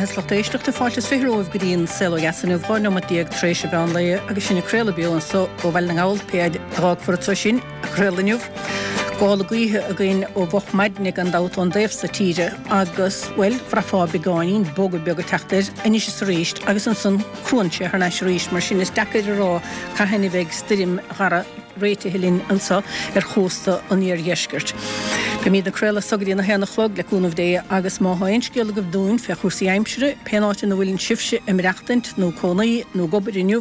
beatha is lucht éisteachta, fáilte is 20 romhaibh go dtí an Saol Ó Dheas inniu, 12 neomat tar éis an mheán lae agus sinn ag craoladh beo anso ó Bhaile na nGall, pé fhaid a dh'fhágfar anso sinn ag craoladh inniu. Gála gaoithe againn ó mhoch maidne gan dabht ón dtaobh so tíre agus, bhuel, bhraithfeá beagáinín bogadh beag ag teacht air anois is arís agus ansan cruann sé thar n-ais arís mar sin is deacair a rá cathain a bheidh stoirm Dhara réitithe linn anso ar chósta an iardheiscirt. Beimid ag craoladh as so go dtí an 1 a chlog, le cúnamh Dé, agus má thá aon scéal agaibh dúinn fé chúrsaí aimsire, pén áit ina bhfuileann sibhse ag maireachtaint, nó cónaí, nó ag obair inniu,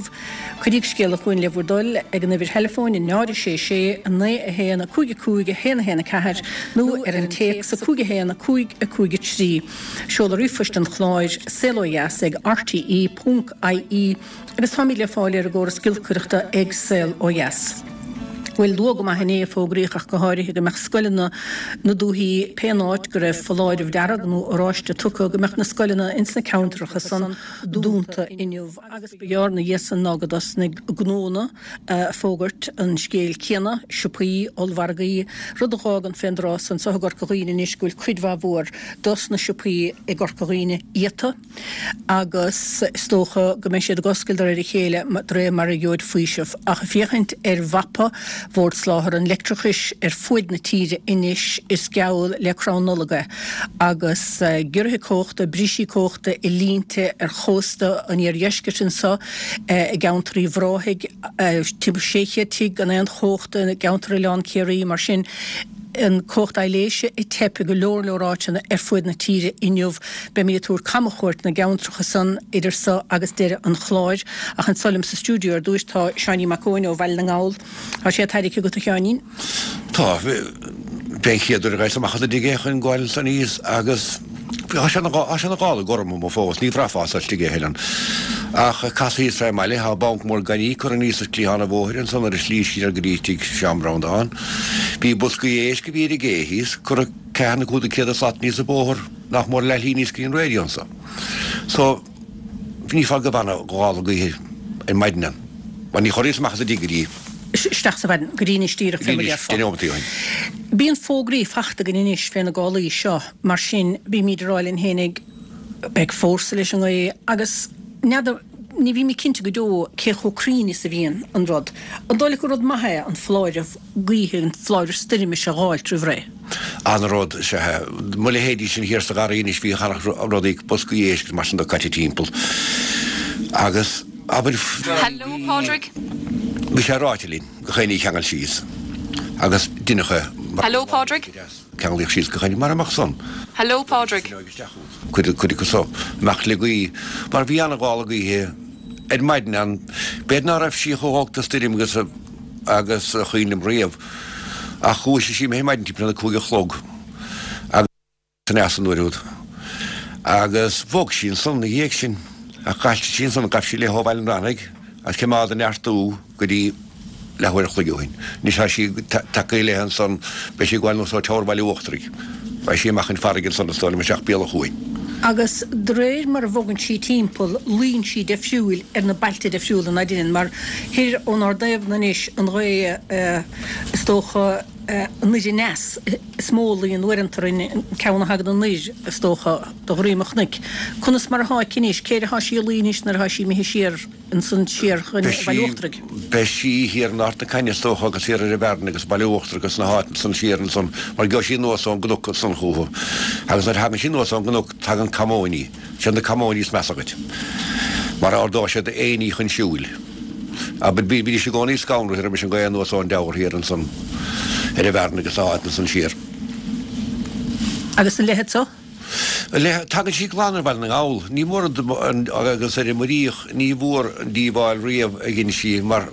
cuiríg scéala chugainn le bhur dtoil ag an uimhir theileafóin 0 6 6 9 1 5 5 1 1 4 nó ar an téacs 5 1 5 5 3. Seoladh ríomhphoist an chláir, saolodheas ag rte ponc ie. Agus táimid le fáil ar an gcóras giolcaireachta ag Saol Ó Dheas. Bhuel, luath go maith inné a fógraíodh ach go háirithe go mbeadh scoileanna na dúthaí pén áit go raibh foláireamh dearg nó oráiste tugtha go mbeadh na scoileanna ins na ceantracha san dúnta inniu agus ba ghearr 'na dhiaidh san ná go dtosnaigh gnónna a fógairt an scéil céanna, siopaí, ollmhargaí, rud a dh'fhágann fén dtráth san anso i gCorca Dhuibhne anois go bhfuil cuid mhaith mhór dos na siopaí i gCorca Dhuibhne iata. agus is dócha go mbeidh siad ag oscailt de réir a chéile de réir mar a gheobhaid faoiseamh. Ach ag féachaint ar mhapa Bhord Soláthair an Leictreachais ar fuaid na tíre anois is geall le crann Nollag é agus giorruithe cumhachta, brisí cumhachta i línte ar chósta an iardheiscirt anso i gceantar Uíbh Ráthaigh, timpeall 600 tigh gan aon chumhacht i gceantar Oileán Ciarraí mar sin. an cumhacht aibhléise ag teip i go leor leor áiteanna ar fuaid na tíre inniu. Beimid ag tabhairt camchuairt na gceantracha san idir so agus deireadh an chláir. Ach anso liom sa stiúideo ar dtúis tá Seáinín Mac Eoin ó Bhaile na nGall. Tá sé tarraicthe agat a Sheáinín? Tá. B'é an chéad uair a ghabhas amach as an dtigh é chun gabháil ansan thíos agus tá sé ina ghála gorm amuigh fós, ní bhraithfeá as istigh é a thuilleadh. Ach casadh thíos fé mbaile, tá banc mór gainimh curtha aníos ar chliathán an bhóthair ansan ar an slí siar go dtí tigh Seán Breandán. Bhí boscaí éisc a bhí ar an gcé thíos, curtha ceathair nó 500 slat aníos an bóthar, nach mór leathshlí aníos go dtí an raidió anso. So, ní fáth go bhfanadh gála gaoithe ar maidin ann. Mar ní chorraíos amach as an dtigh go dtí. Isteach sa mhaidin, go dtí anois díreach fé mar a déarfá. Deich nóimeataí ó shin. Bíonn fógraí fachta againn anois fé na gálaí seo, mar sin bímíd ag rá linn fhéinig, beidh fórsa leis an ngaoth agus n'fheadar, ní bhímid cinnte go deo cé chomh cruinn is a bhíonn an rud. An dóigh leat gur rud maith é an foláireamh gaoithe, an foláireamh stoirme seo a dh'fháilt roimh ré? An-rud is ea é. Mo leithéidí sin thiar sa gharraí anois bhí rudaí, boscaí éisc agus mar sin de caite timpeall agus abair Hello Pádraig. Bhí sé ráite linn gach aon ní a cheangal síos agus deineadh é mar Hello Pádraig. Ceanglaíodh síos gach aon ní mara mbeadh san. Hello Pádraig. Cuid acu so amach le gaoth mar bhí an-ghála gaoithe ar maidin ann. B'fhéidir ná raibh sí chomh holc do stoirm agus agus a chuimhin liom riamh ach dhúisigh sí mé ar maidin timpeall a 5 a chlog agus aneas an uair úd agus bhog sí ansan 'na dhiaidh sin ach d'fhoilsigh sí ansan ghabh sí léi ó Bhaile an Bhranaigh agus choimeád ag neartú go dtí leathuair a chloig ó shin. Anois tá sí tagtha léi ansan, beidh sí ag gabháil anuas ó Teamhair Bhaile Uachtaraigh. Beidh sí amach chun farraige ansan is dóigh liom isteach béal an chuain. Agus de réir mar a bhogann sí timpeall, luíonn sí deifriúil ar na bailte deifriúla, ná deineann? Mar thoir ónár dtaobhna anois, an ghaoth is dócha anoir aneas is mó a luíonn uaireanta orainn, an ceann a thagann anoir is dócha de dhroim an chnoic. Conas mar atá aici anois? Cé air atá sí ag luí anois nuair atá sí imithe siar? ansan siar chun Baile Uachtaraigh. Beidh sí thiar in Ard na Caithne is dócha agus thiar ar an Bhearna agus Baile Uachtarach agus na háiteanna san siar ansan mar gheobhaidh sí anuas ón gcnoc ansan chúthu agus nuair a thagann sí anuas ón gcnoc tagann camóiní, siad na camóiní is measa dhuit mar ardóidh siad aon ní chun siúil. Abair bídís i gcónaí scanraithe roimis an gaoth anuas ón dTeamhair thiar ansan ar an Bhearna agus na háiteanna san siar. Agus an leithead so? Tagann sí glan ar Bhaile na nGall. Ní mór an agus ar an Muiríoch ní mhór an díobháil riamh a dhein sí mar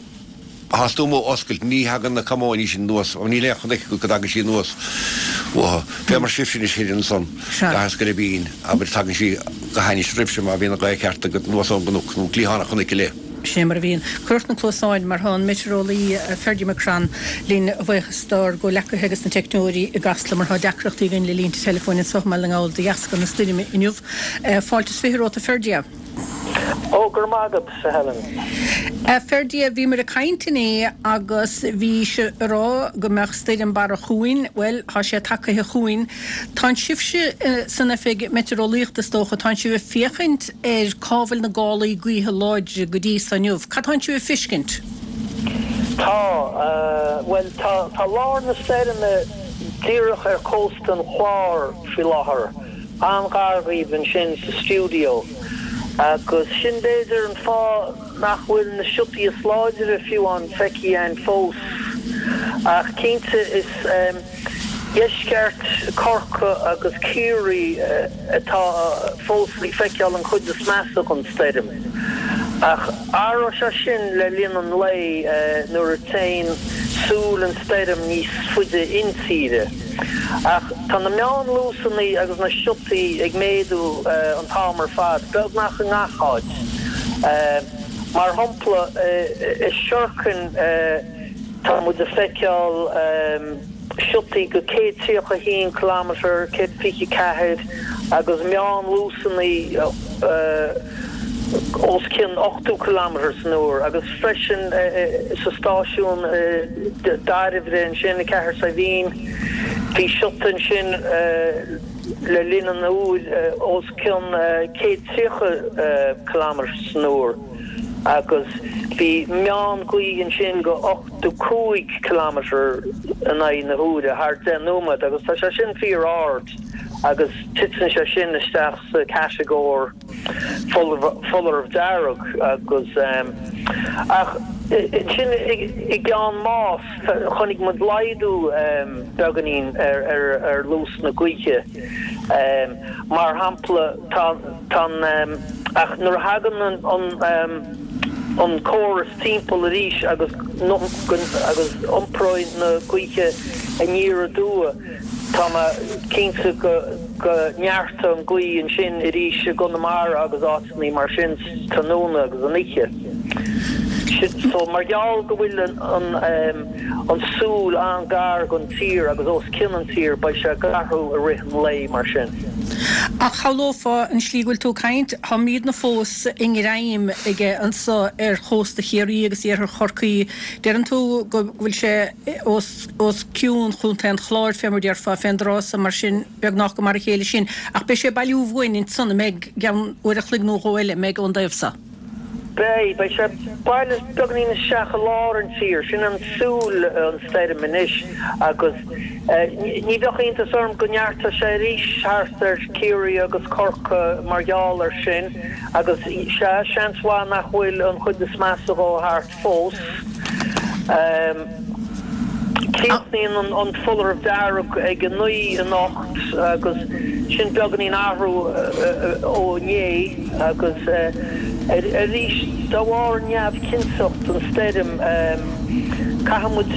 thá tú amuigh oscailt ní thagann na camóiní sin anuas níl aon chnoic go dtagann sí anuas uathu. Fé mar sibhse anois thoir ansan gach is go Bín abair tagann sí go hainnis roimhse má bhíonn an ghaoth ceart agat anuas ón gcnoc nó cliathán an chnoic i leith. Sin é mar a bhíonn. Cuir ort na cluasáin mar tá an meitéareolaí Ferdia McCrann linn a bhuíochas dár gcomhleacaithe agus na teicneoirí i gCasla mar tá deacrachtaí againn le línte teileafóin anseo i mBaile na nGall de dheasca na stoirme inniu. Fáilte is 20 romhat a Ferdia. Ó, go raibh maith agat, a Helen. A Ferdia, bhíomar ag caint inné agus bhís ag rá go mbeadh stoirm Barra chugainn. Bhuel, tá sé tagaithe chugainn. Tánn sibhse san oifig meitéareolaíochta, is dócha, tánn sibh ag féachaint ar cá bhfuil na gálaí gaoithe láidre go dtí so inniu. Cad tánn sibh ag fiscint? Tá, bhuel, tá, tá lár na stoirme díreach ar chósta an Chláir faoi láthair. An-ghar dhaoibh ansin sa stiúideo agus sin b'fhéidir an fáth nach bhfuil na siotaí is láidre fiú amháin feicthe againn fós. Ach cinnte is deisceart Chorcaí agus Ciarraí atá fós ag feiceáil an chuid is measa den stoirm. Ach athróidh sé sin le linn an lae nuair a téann súil an stoirm níos faide intíre. Ach tá na meánluasanna agus na siotaí ag méadú an t-am ar fad, beagnach i ngach áit. Mar shampla, i Sherkin tá muid ag feiceáil siotaí go 131 kilometre, 124, agus meánluasanna os cionn 80 kilometre san uair agus freisin sa stáisiún Dairbhre ansin i gCathair Saidhbhín bhí siota ansin le linn an uair os cionn 130 kilometre san uair agus bhí meán gaoth ansin go 85 kilometre in aghaidh na huaire thar 10 nóiméad agus tá sé sin fíor ard agus titeann sé sin isteach sa chatagóir foláireamh dearg agus ach ansin i gCeann Máis chonaic muid laghdú beagáinín ar luas na gaoithe. Mar shampla tá an ach nuair a thagann an córas timpeall arís agus agus iompróidh na gaoithe aniar aduaidh Tá mé cinnte go neartóidh an ghaoth ansin arís i gConamara agus áiteanna mar sin tráthnóna agus an oíche. So mar gheall go bhfuil an súil an-ghar don tír agus os cionn an tír beidh sé ag athrú i rith an lae mar sin. Ach shamhlófá an slí go bhfuil tú ag caint, táimidne fós i ngreim aige anso ar chósta Chiarraí agus iarthar Chorcaí. Deireann tú go bhfuil sé os. os cionn Chontae an Chláir, fé mar déarfá, fén dtráth so, mar sin, beagnach go mar a chéile sin. Ach beidh sé ag bailiú uainn ansan, an mbeidh, i gceann uair a chloig nó dhó eile, an mbeidh, ón dtaobh so? Beidh. Beidh sé ag bailiú beagainín isteach i lár an tír. Sin an súil an stoirm anois agus ní bheadh iontas orm go neartódh sé arís thart ar Ciarraí agus Corcaigh mar gheall ar sin agus sea, seans mhaith nach bhfuil an chuid is measa dhó thart. fós. Críochnaíonn an foláireamh dearg ag 9 anocht agus sin beagáinín athrú ó inné agus arís de bharr neamhchinnteacht an stoirm caithfidh muid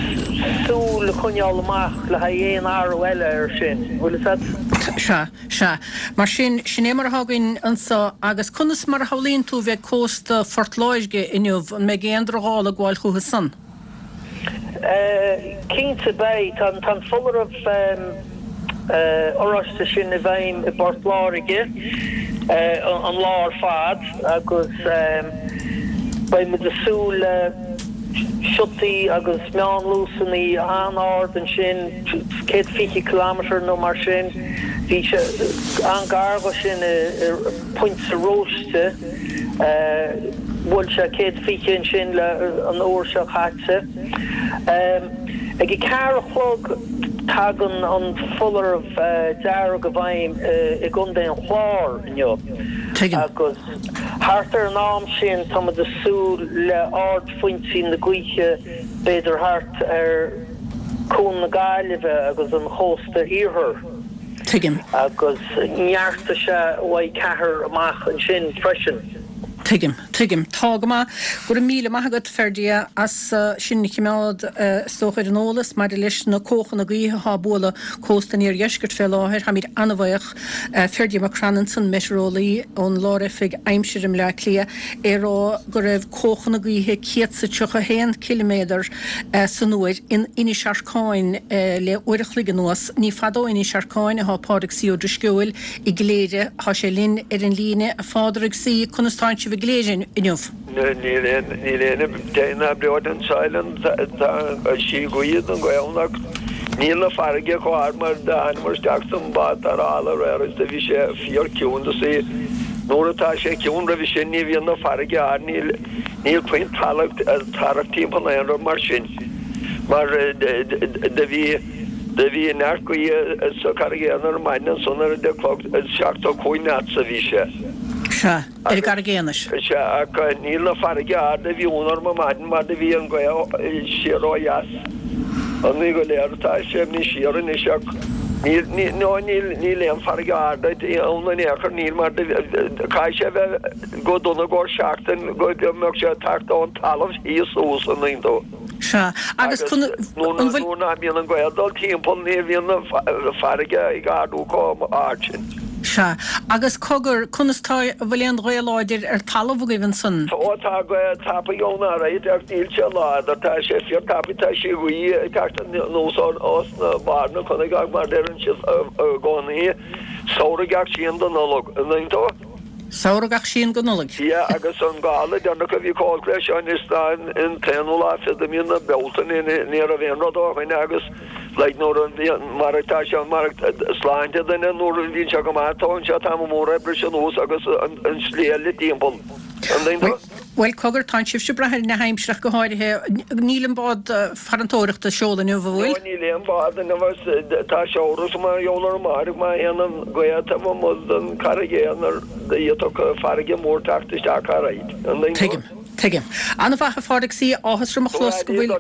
súil a choinneáil amach le haghaidh aon athrú eile air sin. Bhfuil fhios agat? Sea. Sea. Mar sin, sin é mar atá againn anso. Agus conas mar a shamhlaíonn tú a bheidh cósta Phort Láirge inniu? An mbeidh aon drochghála ag gabháil chucu san? Cinnte beidh. Tá an foláireamh oráiste sin i bhfeidhm i bPort Láirge an lá ar fad agus beidh muid ag súil le siotaí agus meánluasanna an-ard ansin, 120 kilometre nó mar sin. Bhí sé an-ghar dho sin i Pointe Róiste. Bhuail sé 120 ansin le an uair seo caite. Ag a ceathair a chlog tagann an foláireamh dearg i bhfeidhm i gContae an Chláir inniu. Agus thart ar an am sin tá muid ag súil le ardphointí na gaoithe b'fhéidir thart ar Cuan na Gaillimhe agus an chósta iarthair. Tuigim. Agus neartóidh sé uaidh ceathair amach ansin freisin. Tuigim. Tuigim. Tá go maith. Go raibh míle maith agat, Ferdia, as sinn a chimeád, is dócha, ar an eolas maidir leis na cuachanna gaoithe atá ag bualadh cósta an iardheiscirt fé láthair. Táimid an-bhaoch. Ferdia McCrann ansan, meitéareolaí ón Lár-Oifig Aimsire i mBleá Cliath, é ag rá go raibh cuachanna gaoithe 131 ciliméadar san uair in Inis Arcáin le uair a chloig anuas. Ní fada ó Inis Arcáin atá Pádraig C. Ó Drisceoil i gCléire. Tá sé linn ar an líne. A Phádraig C, conas tánn sibh i gCléire inniu? Níl aon níl aon deimhin ná breoite anseo Helen tá sí gaoth don ghaoth ann ach níl na farraige chomh hard mar d'thánamar isteach san bád tarrthála aréir agus do bhí sé fíor ciúin do sí nuair atá sé ciúin roimhe sin ní bhíonn na farraige ard níl níl puinn tarrac tarrac timpeall aon rud mar sin mar do bhí Do bhí neart gaoithe sa Charraig Aonair ar maidin ansan ar 10 chlog, 75 knots a bhí sé. Sea, ar an gCarraig Aonair. Sea, ach níl na farraige ard a bhí ann orm ar maidin mar do bhí an ghaoth siar ó dheas. An ní go léir atá sé imithe siar anois ach níl, níl, no níl, níl aon farraige ard ann in aon chor, níl mar do, caithfidh sé bheith go dona i gcomhair seachtain go mbeadh sé ag teacht ón talamh thíos suas an dtuigeann tú. Sea, agus an bhfuil. Nuair nach mbíonn an ghaoth ag dul timpeall ní bhíonn an farraige ag ardú chomh hard sin. Sea, agus cogar, conas tá, an bhfuil aon ghaoth láidir ar talamh agaibh ansan? Tá, tá gaoth tapaidh ann alright ach níl sé láidir, tá sé fíor tapaidh, tá sí gaoth ag teacht anuas os na barr na cnoic ach mar deireann siad i gcónaí, samhradh gach síon do Nollaig, an dtuigeann tú? Samhradh gach síon go Nollaig. Sea, agus an gála deireanach a bhí chomh holc leis seo anois ná an t-aonú lá fichead de mí na Bealtaine, ní raibh aon rud ó shoin agus like nuair a bhíonn, mar atá sé, mar sláinte duine nuair a bhíonn sé go maith, tógann sé tamall mór oibre sin anuas agus an slí eile timpeall. An dtuigeann tú? Bhuel, cogar, tánn sibhse ag brath ar na haimsire ach go háirithe. Níl an bád farantóireachta ag seoladh inniu, an bhfuil? No, níl aon bhád inniu agus tá sé amhras mar gheall ar amárach má théann an ghaoth taobh amuigh den Charraig Aonair d'fhéadfadh farraige mór teacht isteach alright. An dtuigeann tú? Tuigim. Tuigim. An-mhaith, a Phádraig C. Áthas orm a chlos go bhfuil.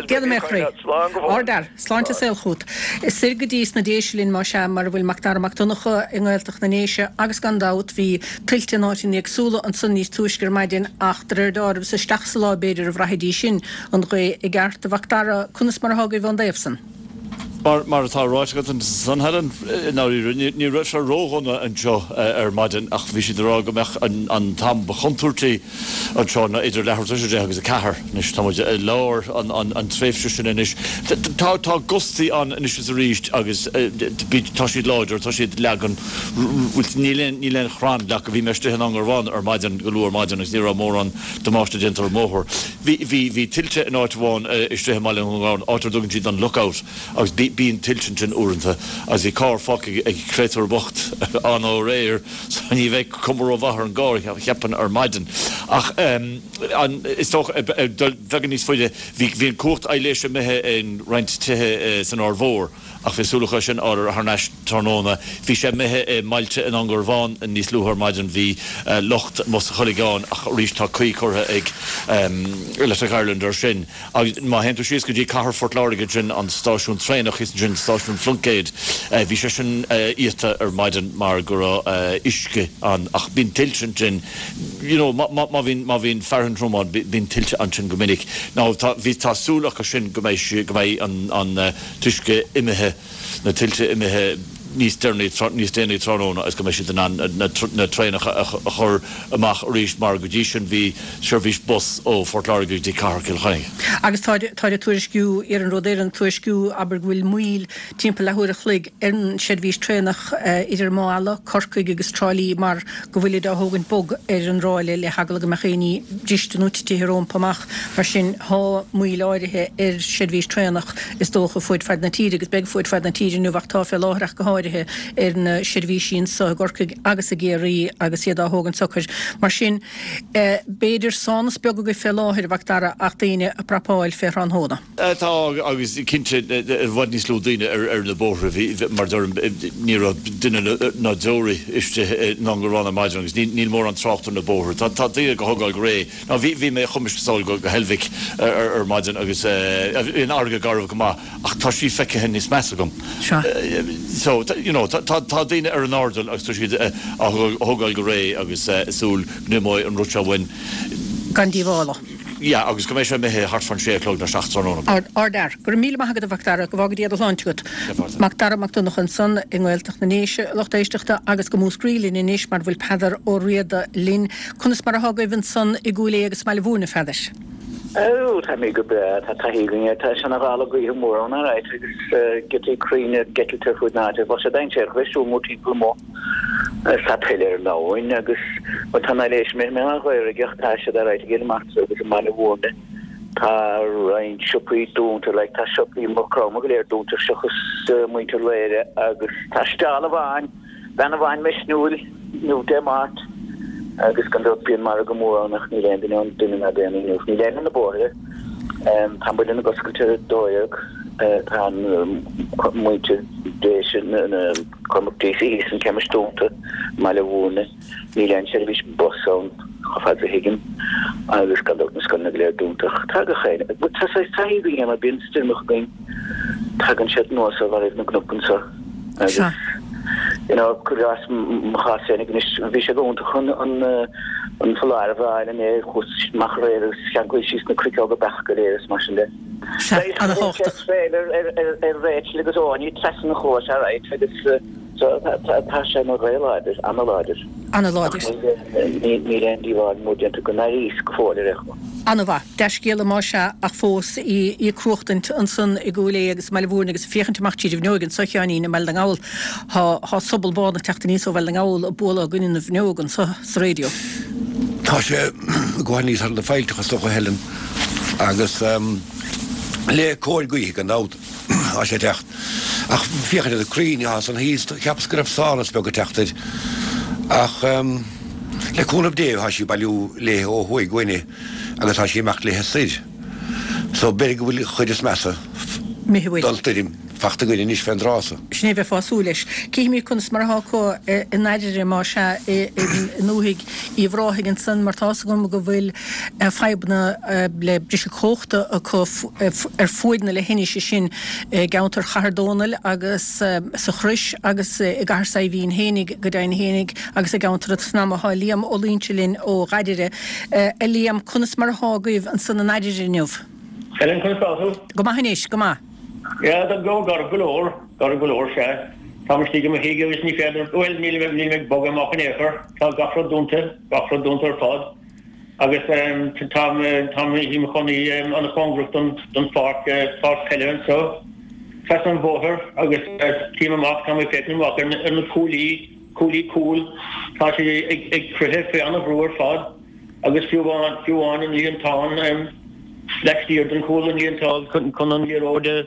Déanfaidh mé a chroí. Slán go fóill. Ardfhear. Sláinte is saol chugat. Soir go dtí sna Déise linn más ea, mar a bhfuil Macdara Mac Donncha i nGaeltacht na nDéise agus gan dabht bhí tuilte in áiteanna éagsúla ansan níos túisce ar maidin ach de réir deáraimh is isteach sa lá b'fhéidir a bhraithfidís sin an ghaoth i gceart. A Mhacdara, conas mar atá agaibh ón dtaobh san? Mar atá ráite agat ansan, Helen, i ndáiríre, ní raibh sé ródhona anseo ar maidin ach bhí siad ag rá go mbeadh an t-am ba chontúirtí anseo ná idir leathuair tar éis 10 agus 4. Anois, tá muid i lár an tréimhse sin anois. Tá gustaí ann anois is arís agus tá siad láidir, tá siad ag leagan, níl aon chrann leagtha. Bhí mé istigh in Indreabhán ar maidin, go luath ar maidin agus ní raibh mórán damáiste déanta ar an mbóthar. Bhí, bhí, bhí tuilte in áit amháin istigh i mBaile Dhún na nGall, áit ar dtugann siad an Lookout, agus bí, bíonn tuilte ansin uaireanta, agus bhí carr fágtha ag créatúr bocht ann aréir, so ní bheidh cuma rómhaith ar an gcarr, cheapfainn, ar maidin. Ach ehm, an, is dócha, ag dul beagán níos faide, bhí, bhí an cumhacht aibhléise imithe in roinnt tithe san Aird Mhór, Ach bhí súil acu é sin a fháil thar n-ais tráthnóna. Bhí sé imithe i mbailte in Indreabhán níos luaithe ar maidin. Bhí locht amuigh sa Choileagán ach arís tá caoi curtha ag Electric Ireland air sin. Agus má théann tú síos go dtí cathair Phort Láirge ansin, an stáisiún traenach thíos ansin, stáisiún Phluincéid, bhí sé sin iata ar maidin mar go raibh uisce ann. Ach bíonn tuilte ansin, you know, má bhíonn, má bhíonn fearthainn throm ann, bíonn tuilte ansin go minic. Now tá, bhí, tá súil acu sin go mbeidh, go mbeidh an, an, t-uisce imithe, na tuilte imithe níos deireanaí, níos déanaí tráthnóna agus go mbeidh siad in ann na traenacha a chur amach arís mar go dtí sin bhí seirbhís bus ó Phort Láirge go dtí cathair Chill Chainnigh. Agus táid ag tuairisciú, Iarnród Éireann ag tuairisciú, abair, go bhfuil moill timpeall leathuair a chloig ar an seirbhís traenach idir Maigh Ealla, Corcaigh agus Trá Lí mar go bhfuilid á thógaint bog ar an ráille le heagla go mbeadh éinní briste nó titithe rómpa amach. Mar sin, thá moill áirithe ar seirbhís traenach, is dócha, fuaid fad na tíre, agus beidh fuaid fad na tíre inniu, ach tá fé láthair ach go háirithe, ar na seirbhísí anso i gCorcaigh agus i gCiarraí agus iad á thógaint socair. Mar sin, b'fhéidir sánas beag agaibh fé láthair, a Mhac Dara, ach daoine ag prapáil fé thráthnóna. Tá, agus cinnte, i bhfad níos lú daoine ar na bóithre. Bhí, mar a deirim, ní raibh duine ná deoraí istigh in Indreabhán ar maidin agus níl mórán trácht ar na bóithre. Tá daoine ag thógáil go réidh. Ná bhí, bhí mé, chuaigh mise sall go Heilbhic ar maidin agus bhí an fharraige garbh go maith ach tá sí feicthe níos measa agam. Sea. So. you know, tá daoine ar an airdeall agus tá siad á thógáil go réidh agus ag súil go n-imeoidh an rud seo uainn. Gan díobháil. Yeah, agus go mbeidh sé imithe thart fán sé a chlog nó 7 tráthnóna. Ardfhear. Go raibh míle maith agat a Mhac Dara, go bhfága Dia do shláinte agat. Mac Dara Mac Donncha ansan i nGaeltacht na nDéise, a lucht éisteachta, agus go Múscraí linn anois mar bhfuil Peadar Ó Riada linn. Conas mar athá agaibh ansan i gCúil Aodha agus i mBaile Mhúirne, a Pheadair? Ó, táimid go breá, tá taithí againn air, tá seana-ghála gaoithe mór ann alright agus giotaí crainn ag eitilt ar fuaid na háite, bheadh sé dainséarach a bheith ag siúl mórthimpeall amuigh. Tá tuile ar an abhainn agus, bhuel tá an aibhléis imithe mé an Ghaorthaidh ach tá siad alright i gCill Martra agus i mBaile Mhúirne. Tá roinnt siopaí dúnta, like tá siopaí Maigh Chromtha go léir dúnta seachas muintir Laoire agus tá steall amháin, Bean amháin misniúil inniu Dé Máirt agus gan dabht bíonn margadh mór ann ach níl aon duine ann, duine ná daonnaí inniu. Níl éinne ar na bóithre. Tá an Muileann ag oscailt ar 12. Tá an muintir Déise, Cormac Deasy thíos an chemist dúnta i mBaile Mhúirne. Níl aon seirbhís bus ann chomh fada is a thuigim agus gan dabht na scoileanna go léir dúnta. Ach tá gach éinne, tá saghas taithí againn air mar bíonn stoirmeacha againn. Tagann siad anuas ó bharraibh na gcnoc anseo agus you know cuir i gcás mo chás féinig anois bhí sé go hiontach an an an foláireamh a fháil inné chuas amach aréir agus cheanglaigh síos na cruiceoga beach go léir is mar sin de. Sea, ana-thábhachtach. Traeil ar ar ar ar Rachel agus Áine trasna an chlóis alright agus so tá tá tá sé ina ghaoth láidir, ana-láidir. Ana-láidir. Ach níl níl aon díobháil mór déanta go n-airíos go fóill ar aon chuma. Ana-mhaith. Dea-scéala más ea, ach fós í ag cruachtaint ansan i gCúil Aodha agus i mBaile Mhúirne agus ag féachaint amach tríd an bhfuinneoig anso, a Sheáinín, i mBaile na nGall. Thá, thá sobal bán ag teacht aníos ó Bhaile na nGall ag bualadh i gcoinne na bhfuinneog anso sa raidió. Tá sé ag gabháil aníos thar na faillteacha is dócha, a Helen, agus le cóir gaoithe gan dabht tá sé ag teacht. Ach féachaint ar na crainn atá ansan thíos, cheapas go raibh sonas beag ag teacht air. Ach le cúnamh Dé tá sí ag bailiú léithe ó thuaidh uainne agus tá sí ag imeacht léithe soir. So b'fhéidir go bhfuil an chuid is measa don stoirm fachta againn anois fén dtráth so. Sin é a bheifeá ag súil leis. Cífimid conas mar atá acu i nDairire, más ea, i ndúthaigh Uíbh Ráthaigh ansan mar tá's agam go bhfuil fadhbanna le briseadh cumhachta acu ar fuaid na leithinise sin i gceantar Chathair Dónaill agus sa Chrois agus i gCathair Saidhbhín fhéinig go deimhin fhéinig agus i gceantar an tSnadhma. Tá Liam Ó Loingsigh linn ó Dhairire. A Liam, conas mar atá agaibh ansan i nDairire inniu? Helen, conas tá tú? Go maith anois, go maith. Yeah, tá go garbh go leor, garbh go leor, sea. Táim istigh i mo thigh agus ní féidir, bhuel, níl mé, níl mé ag bogadh amach in aon chor. Tá gach rud dúnta, gach rud dúnta ar fad. Agus táim, táim i mo chónaí an-chóngarach don, don pháirc, páirc peile anseo, trasna an bhóthair agus tchím amach, táim ag féachaint amach ar na, ar na cuaillí, cuaillí cúil, tá siad ag, ag croitheadh faoi an-bhrú ar fad agus fiú amháin, fiú amháin an líontán laistiar den chúl, an líontán chun, chun an liathróid a,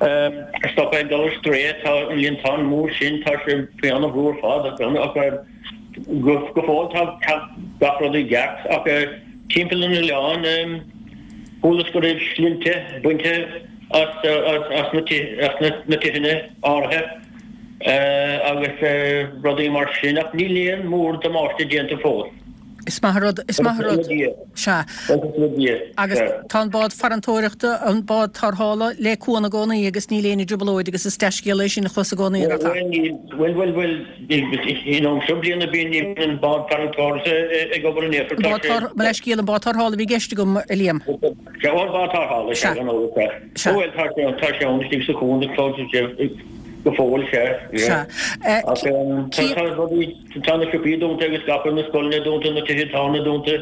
a stopadh ag dul ar strae, tá an líontán mór sin, tá sé faoi an-bhrú ar fad ach, Go fóill tá gach rud i gceart ach timpeall an oileáin chualas go raibh slinnte bainte as na tithe áirithe agus rudaí mar sin ach níl aon mór damáiste déanta fós. Is maith an rud, is maith an rud. Sea. Agus tá an bád farantóireachta, an bád tarrthála le cuan i gcónaí agus níl éinne i dtrioblóid agus is dea-scéala é sin a chlos i gcónaí, nach ea? Bhuel, bhuel, bhuel, in am seo bliana bíonn an bád farantóireachta ag obair in aon chor. Tá sé. Mo leithscéal, an bád tarrthála a bhí i gceist agam, a Liam. Sea, an bád tarrthála, sea, gan amhras, sea. Sea. Bhuel, tá sé, tá sé ann istigh sa chuan go fóill, sea. Sea. Ach tá rudaí. Tá na siopaí dúnta agus gach rud, na scoileanna dúnta, na tithe tábhairne dúnta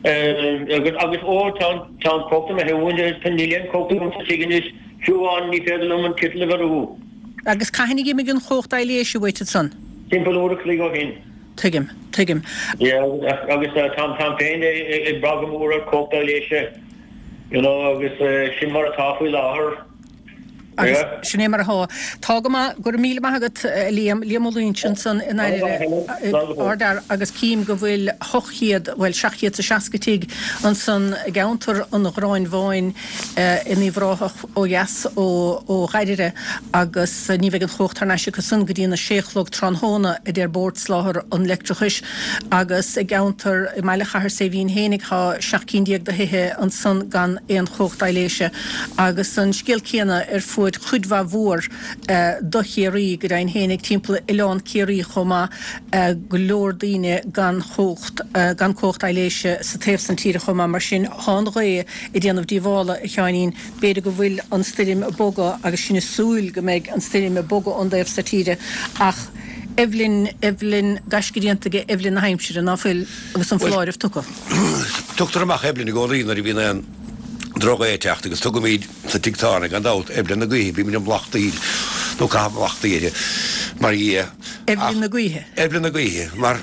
agus, agus ó tá an, tá an chumhacht imithe uainn, níl aon chumhacht agam sa tigh anois, fiú amháin ní féidir liom an kettle a bheirú. Agus cathain a d'imigh an chumhacht aibhléise uait ansan? Timpeall uair a chloig ó shin. Tuigim, tuigim. Yeah, agus táim, táim féin ag brath go mór ar chumhacht aibhléise, you know, agus sin mar atá faoi láthair. Agus sin é mar atá. Tá go maith. Go raibh míle maith agat, a Liam. Liam Ó Loingsigh ansan i nDairire, Ardfhear, agus cím go bhfuil 800, bhuel, 760 tigh ansan i gceantar an Ghráin Bháin in Uíbh Ráthach ó dheas ó Dhairire agus ní bheidh an chumhacht thar n-ais acu san go dtí an 6 a chlog tráthnóna, a deir Bord Soláthair an Leictreachais. Agus i gceantar, i mbaile Chathair Saidhbhín fhéinig, tá 17 cinn de thithe ansan gan aon chumhacht aibhléise. Agus an scéal céanna ar fuaid. conspóid chuid mhaith mhór do Chiarraí, go deimhin fhéinig timpeall Oileán Ciarraí chomh maith, go leor daoine gan chumhacht, gan cumhacht aibhléise sa taobh san tíre chomh maith. Mar sin, thá an ghaoth ag déanamh díobhála, a Sheáinín. B'fhéidir go bhfuil an stoirm ag bogadh agus sinn ag súil go mbeidh an stoirm ag bogadh ón dtaobh so tíre ach Eibhlin, Eibhlin, gaisce déanta ag Eibhlin na haimsire, ná fuil, agus an foláireamh tugtha. Tugtar amach Eibhlin i gcónaí nuair a bhíonn aon drochghaoth ag teacht agus tugaimid sa tigh tábhairne gan dabht Eibhlin na gaoithe, bímid ag mallachtaíl nó caitheamh mallachtaí uirthi mar dhia. Eibhlin na gaoithe. Eibhlin na gaoithe mar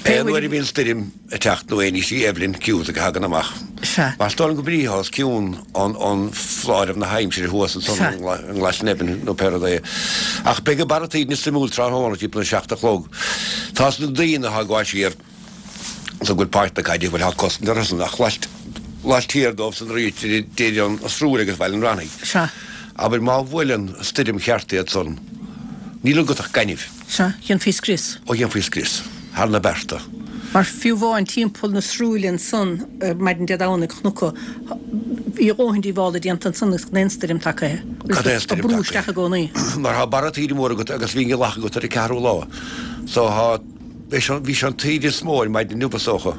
aon uair a bhíonn stoirm ag teacht nó aon ní, sí Eibhlin Cusack a thagann amach. Sea. Mar is dóigh liom go bhí os cionn an foláireamh na haimsire thuas ansan Sea. i nGlasnevin nó pé rud é. Ach beidh an barra taoide suimiúil tráthnóna timpeall na seacht a chlog. Tá na daoine atá ag gabháil siar so go bhfuil páirc na caide, bhuel tá cosaint orthusan ach laistiar dóibh san arís idir an Srúill agus Baile an Raithnigh. Sea. Abair má bhuaileann stoirm cheart iad san, níl agat ach gaineamh. Sea, dhéanfaí scrios. Ó dhéanfaí scrios thar na bearta. Mar fiú amháin timpeall na Srúille ansan maidin Dé Domhnaigh chonac bhí a dhóthain díobhála déanta ansan agus gan aon stoirm tagaithe. Gan aon Ag stoirm brú tagaithe. isteach i gcónaí. Mar thá barra taoide mór agat agus bhí an ghealach agat ar an ceathrú lá. So thá, bhí sé an taoide is mó ar maidin inniu is dócha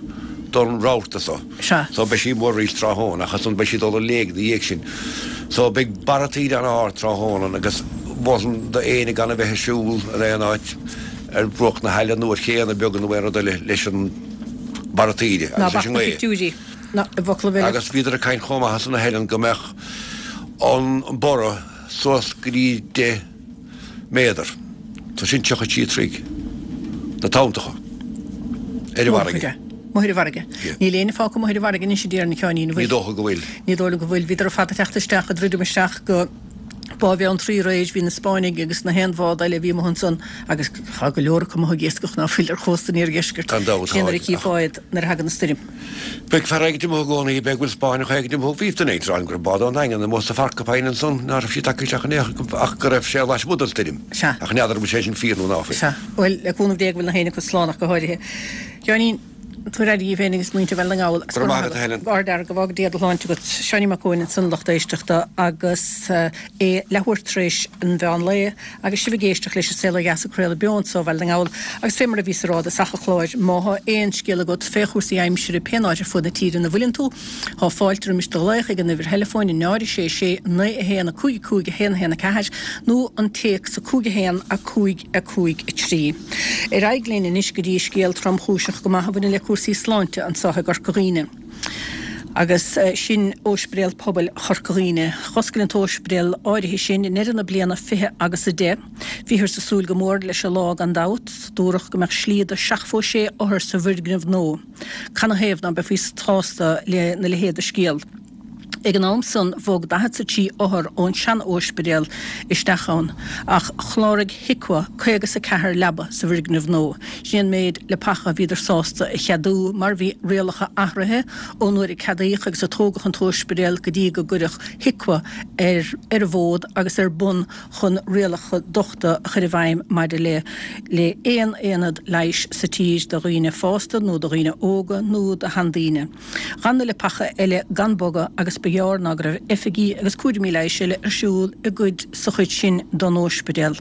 don rabharta so. Sea. So beidh sí mór arís tráthnóna ach ansan beidh sí ag dul i léig na dhiaidh sin. So beidh barra taoide an-ard tráthnóna agus mholfainn do éinne gan a bheith ag siúl in aon áit ar bhruach na haille nó ar chéanna beaga nó aon rud eile leis an barra taoide Ná agus leis bac an na ngaoth. pictiúirí ná i bhfoclaibh eile. Agus bhíodar ag caint chomh maith ansan a Helen go mbeadh an borradh suas go dtí 10 méadar, so sin 33 troigh, na tonntacha ar an bhfarraige. Amuigh ar an bhfarraige. Níl éinne fágtha amuigh ar an bhfarraige anois a déarfainn a Sheáinín, an bhfuil? Ní dócha go bhfuil. Ní dóigh liom go bhfuil. Bhíodar ar fad ag teacht isteach, ag druidim isteach go Bá Bheann Trá aréir, bhí na Spáinnigh agus na haon bhád eile a bhí amuigh ansan agus tá go leor acu amuigh ag iascach ná fuil ar chósta an iardheiscirt. Gan dabht, Sin nuair a tá. chífeá iad nuair a thagann an stoirm. Beidh fear éigint amuigh i gcónaí, beidh go bhfuil Spáinneach éigint amuigh. Bhí duine éigint ag rá liom go raibh bád ón nDaingean amuigh sa Phorcupine ansan, ná raibh siad tagtha isteach in aon chor ach go raibh sé lasmuigh den stoirm. Sea. Ach n'fheadar an bhfuil sé sin fíor nó ná fuil. Sea. Bhuel, le cúnamh Dé go bhfuil na héinne acu slán ach go háirithe. Sheáinín, tabhair aire dhíbh féin agus muintir Bhaile na nGall. Go raibh maith agat, a Helen. Ard-fhear, go bhfága Dia do shláinte agat. Seáinín Mac Eoin ansan, lucht éisteachta, agus é leathuair tar éis an mheán lae agus sibh ag éisteacht leis An Saol Ó Dheas ag craoladh beo anso ó Bhaile na nGall agus fé mar a bhíos a rá i dtosach an chláir, má thá aon scéal agat fé chúrsaí aimsire pén áit ar fuaid na tíre ina bhfuileann tú, thá fáilte roimis do ghlaoch ag an uimhir theileafóin 0 6 6 9 1 5 5 1 1 4 nó an téacs 5 1 5 5 3. Ar aghaidh linn anois go dtí scéal tromchúiseach go maith a bhaineann le cúrsaí sláinte anso i gCorca Dhuibhne. Agus sin Óispidéal Pobail Chorca Dhuibhne. Dh'oscail an t-óispidéal áirithe sin i ndeireadh na bliana 20 agus 10. Bhíothar ag súil go mór leis an lá gan dabht. Dúradh go mbeadh slí do sheachtmhó sé othar sa bhfoirgneamh nua. Canathaobh ná beifí sásta lena leithéid de scéal? Ag an am san bhog 43 othar ón sean-óispidéal isteach ann, ach chláraigh HIQA 54 leaba sa bhfoirgneamh nua. Sin an méid leapacha a bhíodar sásta a cheadú mar bhí rialacha athraithe ón uair a ceadaíodh agus a tógadh an t-óispidéal go dtí go gcuireadh HIQA ar ar an bhfód agus ar bun chun rialacha dochta a chur i bhfeidhm maidir le le aon aonad leighis sa tír do dhaoine fásta nó do dhaoine óga nó do sheandaoine. D'fhan na leapacha eile gan bogadh agus ba ghearr ná go raibh oifigí agus cúraimí leighis eile ar siúl i gcuid sa chuid sin don óispidéal.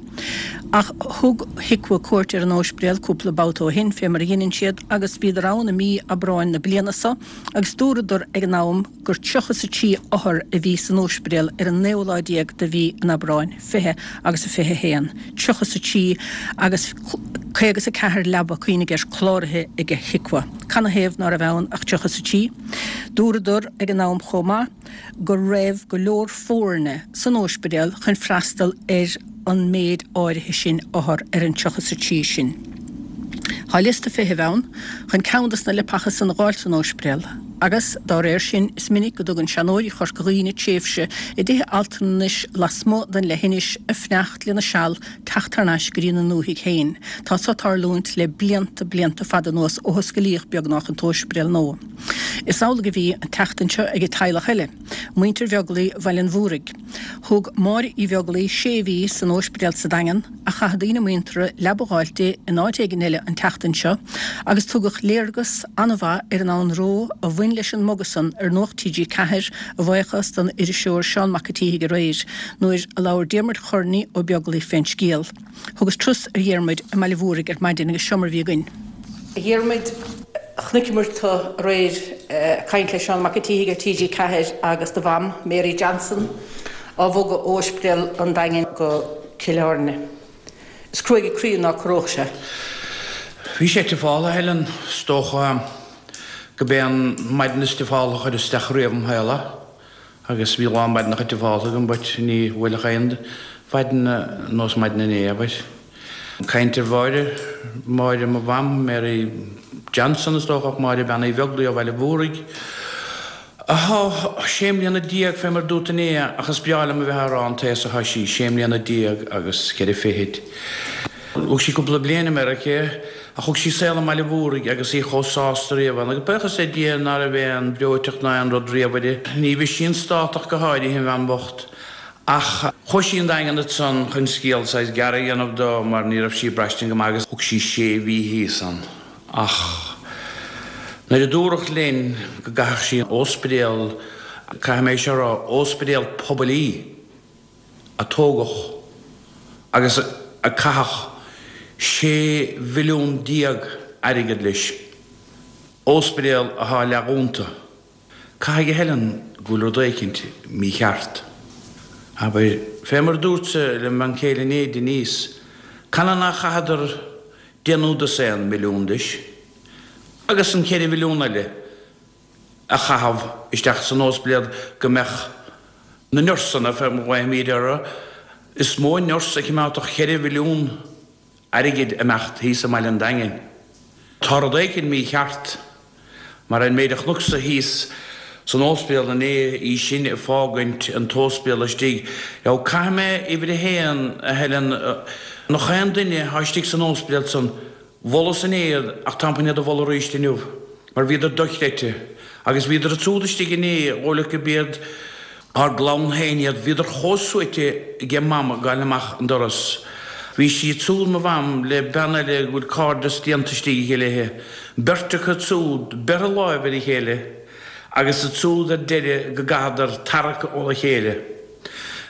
Ach thug HIQA cuairt ar an óispidéal cúpla babhta ó shin, fé mar a dheineann siad, agus bhíodar ann i mí Aibreáin na bliana so agus dúradar ag an am gur 33 othar a bhí san óispidéal ar an naoú lá déag de mhí an Aibreáin, 20 agus a 21, 33 agus 54 leaba, cuimhnigh air, cláraithe ag HIQA. Canathaobh ná raibh ann ach 33? Dúradar ag an am chomh maith go raibh go leor foirne san óispidéal chun freastal ar an méid áirithe sin othar ar an 33 sin. Tá liosta feithimh ann chun ceann dos na leapacha san a dh'fháilt san óispidéal agus, dá réir sin, is minic go dtugann seanóirí Chorca Dhuibhne tréimhse i dtithe altranais lasmuigh den leithinis ag fanacht lena seal teacht thar n-ais go dtí na ndúthaigh féin. Tá so ag tarlúint le blianta, blianta fada anuas ó hoscailíodh beagnách an t-óispidéal nua. Is amhlaidh a bhí an tseachtain seo ag teaghlach eile, muintir Bheaglaoí Bhaile an Mhúraigh. Thug Máire Uí Bheaglaoí sé mhí san óispidéal sa Daingean ach chaith daoine muinteartha leaba a dh'fháilt di in áit éigin eile an tseachtain seo agus tugadh léargas an-mhaith ar an anró a bhain. bhain leis an mbogadh san ar Nuacht TG4 a bhuíochas don iriseoir Seán Mac a' tSíthigh aréir nuair a labhair Diarmuid Chorney Ó Beaglaoich fén scéal. Thugas turas ar Dhiarmuid i mBaile Mhúraigh ar maidin agus seo mar a bhí againn. A Dhiarmuid, chonaiceamar tú aréir ag caint le Seán Mac a' tSíthigh ar TG4 agus do mham, Mary Johnson, á bhogadh ó Ospidéal an Daingin go Cill Airne. Is cruaidh an croí ná corródh sé. Bhí sé tiofáltha, a Helen, is dócha go b'é an maidin is tiofáltha a chuir isteach riamh im shaol é. Agus bhí a lán maidineacha tiofáltha agam but ní bhuailfeadh aon mhaidin ar nós maidin inné, abair. Caint ar Mháire, Máire mo mham, Mary Johnson is dócha ach Máire Bean Uí Bheaglaoich ó Bhaile Mhúraigh. Athá sé mbliana déag fé mar dúrt inné ach is breá liom a bheith á rá an t-aos athá sí, sé mbliana déag agus cheithre fichid. Thug sí cúpla bliain i Meiriceá ach thug sí saol i mBaile Mhúraigh agus í chomh sásta riamh ann agus buíochas le Dia ná raibh aon bhreoiteacht ná aon rud riamh uirthi. Ní bhí sí an stát ach go háirithe, an bhean bhocht. Ach chuaigh sí an Daingean ansan chun scéal saghas gearr a dhéanamh do mar ní raibh sí ag braistint go maith agus thug sí sé mhí thíos ann. Ach nuair a dúradh linn go gcaithfeadh sí an óspidéal, caithfidh mé seo a rá, óspidéal pobail í. a tógadh agus a caitheadh 16 mhilliún airgead leis, óspidéal athá leathdhúnta. Caithfidh a Helen go bhfuil rud éicint mícheart. Abair, fé mar a dúrtsa le m'bhean chéile inné, Denise, canathaobh nár chaitheadar deich nó dosaen milliún leis? Agus an cheithre mhilliún eile? a chaitheamh isteach san óspidéal go mbeadh na nursanna, fé mar a ghlaofaimíd orthu, is mó nurse a chimeádfadh cheithre mhilliún airgid imeacht thíos i mBaile an Daingin. Tá rud éicint mícheart, mar an méid a chonacsa thíos san óspidéal inné, í sin ag fágaint an t-óspidéal istigh. Now, caithfidh mé uimhir a haon, a Helen, nach aon duine atá istigh san óspidéal san, Mholas inné iad ach táim chun iad a mholadh arís inniu mar bhíodar dochreidte agus bhíodar ansúd istigh inné dhóigh leat go b'iad ár gclann féin iad, bhíodar chomh suaite aige Mam ag gabháil amach an doras. Bhí sí ansúd, mo Mham, le bean eile go bhfuil cairdeas déanta istigh aici léithe, beirt acu ansúd, beirthe láimh ar a chéile agus ansúd ar deireadh go gcaitheadar tarrac óna chéile.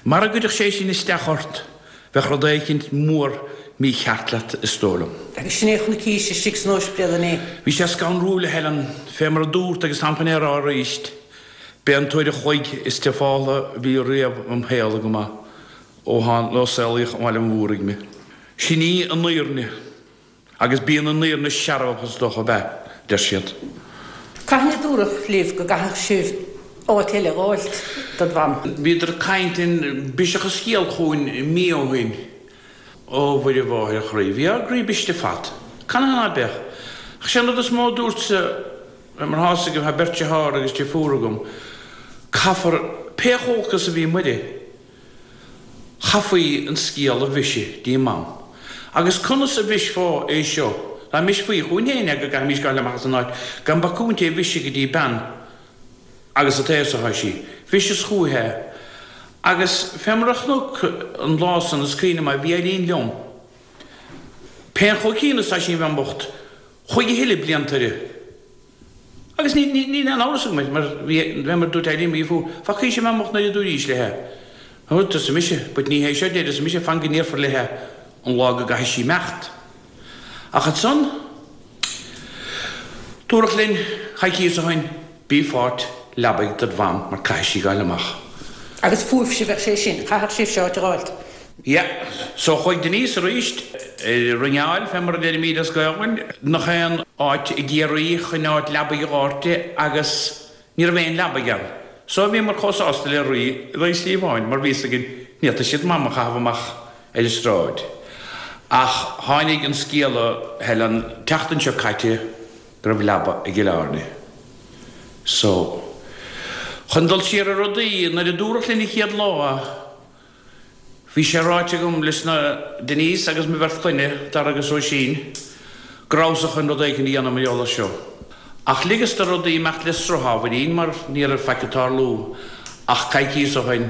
Mara gcuirfeadh sé sin isteach ort, Bheadh rud éicint mór mícheart leat, is dóigh liom. Agus sin é a chonaicís istigh san óispidéal inné. Bhí sé scanrúil, a Helen, fé mar a dúrt agus táim chun é a rá arís, b'é an t-uair a chloig is tiofáltha a bhí riamh im shaol agam é, ó tháin, ó saolaíodh i mBaile an Mhúraigh mé. Sin í an fhírinne. Agus bíonn an fhírinne searbhach is dócha, ab ea? deir siad. Cathain a dúradh libh go gcaithfeadh sibh áit eile a dh'fháilt dod mham? Bhíodar ag caint linn, briseadh an scéal chugainn mí ó shin. Ó Mhuire Mháthair an Chroí, bhí ár gcroí briste fad. Canathaobh ná beadh? Ach sé an rud is mó a dúrtsa, mar thá 'fhios agaibh, thá beirt dearthár agus deirfiúr agam, caithfear, pé chomh holc is a bhí Muire, Chaithfí an scéal a bhriseadh dtí Mam. Agus conas a bhrisfeá é seo, dá mbrisfí chugainn féin é go gcaithfimís gabháil amach as an áit gan bacúint é a bhriseadh go dtí bean agus an t-aos atá sí. Bhriseas chúithi é. Agus fé mar a chonac an lá san, is cuimhin liom é, bhí Eileen liom. Pé chomh ciúin is atá sí an bhean bhocht, chuaigh a thuilleadh blianta uirthi. Agus ní, ní, níl aon amhras agam air, mar bhí, fé mar dúirt Eileen, bhí fú, facaís an bhean bhocht nuair a dúraís léithe. Ó, arsa mise, but ní hé seo deireadh, arsa mise, fan go ndéarfar léithe an lá go gcaithfidh sí imeacht. Ach ansan, dúradh linn coicíos ó shin, bí fáilt leabaidh dod mham mar caithfidh sí gabháil amach. Agus fúibhse bheadh sé sin, chaithfeadh sibhse áit a dh'fháilt. Yeah. So chuaigh Denise arís ag ringeáil, fé mar a deirimíd as Gaolainn, nach aon áit i gCiarraí chun áit leabaidh a dh'fháilt di agus ní raibh aon leabaidh ann. So bhíomar chomh sásta le rí in aghaidh sliabháin mar bhí 'fhios againn ní fhéadfadh siad Mam a chaitheamh amach ar an stráid. Ach tháinig an scéala, Helen, tseachtain seo caite go raibh leaba i gCill Airne. So, chun dul siar ar rudaí, nuair a dúradh linn an chéad lá, Bhí sé ráite agam leis na Denise agus mo bheirt chlainne, Dara agus Róisín, go rabhas-sa chun rud éicint a dhéanamh mar gheall air seo. Ach ligeas do rudaí imeacht le sruth ábhairín mar ní raibh faic ag tarlú ach coicíos ó shin.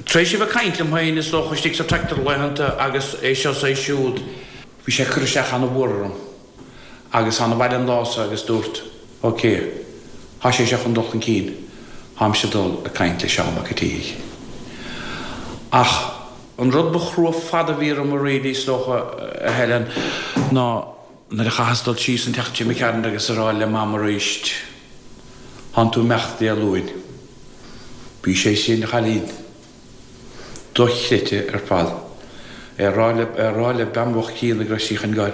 Tar éis a bheith ag caint liom féin is dócha istigh sa tractor laethanta agus é seo is é siúd, bhí sé ag cur isteach ana-mhór orm agus thána abhaile an lá so agus dúrt, ok. Thá sé seo chun dul chun cinn, tháimse ag dul ag caint le Seán Mac a' tSíthigh. Ach an rud ba chrua fada a bhí orm really, is dócha, a Helen, ná nuair a chaitheas dul síos an tseachtain seo imigh tharainn agus a rá le Mam aríst, Thánn tú imeacht Dé Luain. Bhí sé sin, a chailín, dochreidte ar fad. É a rá le, é a rá le bean bhocht críonna go raibh sí chun goil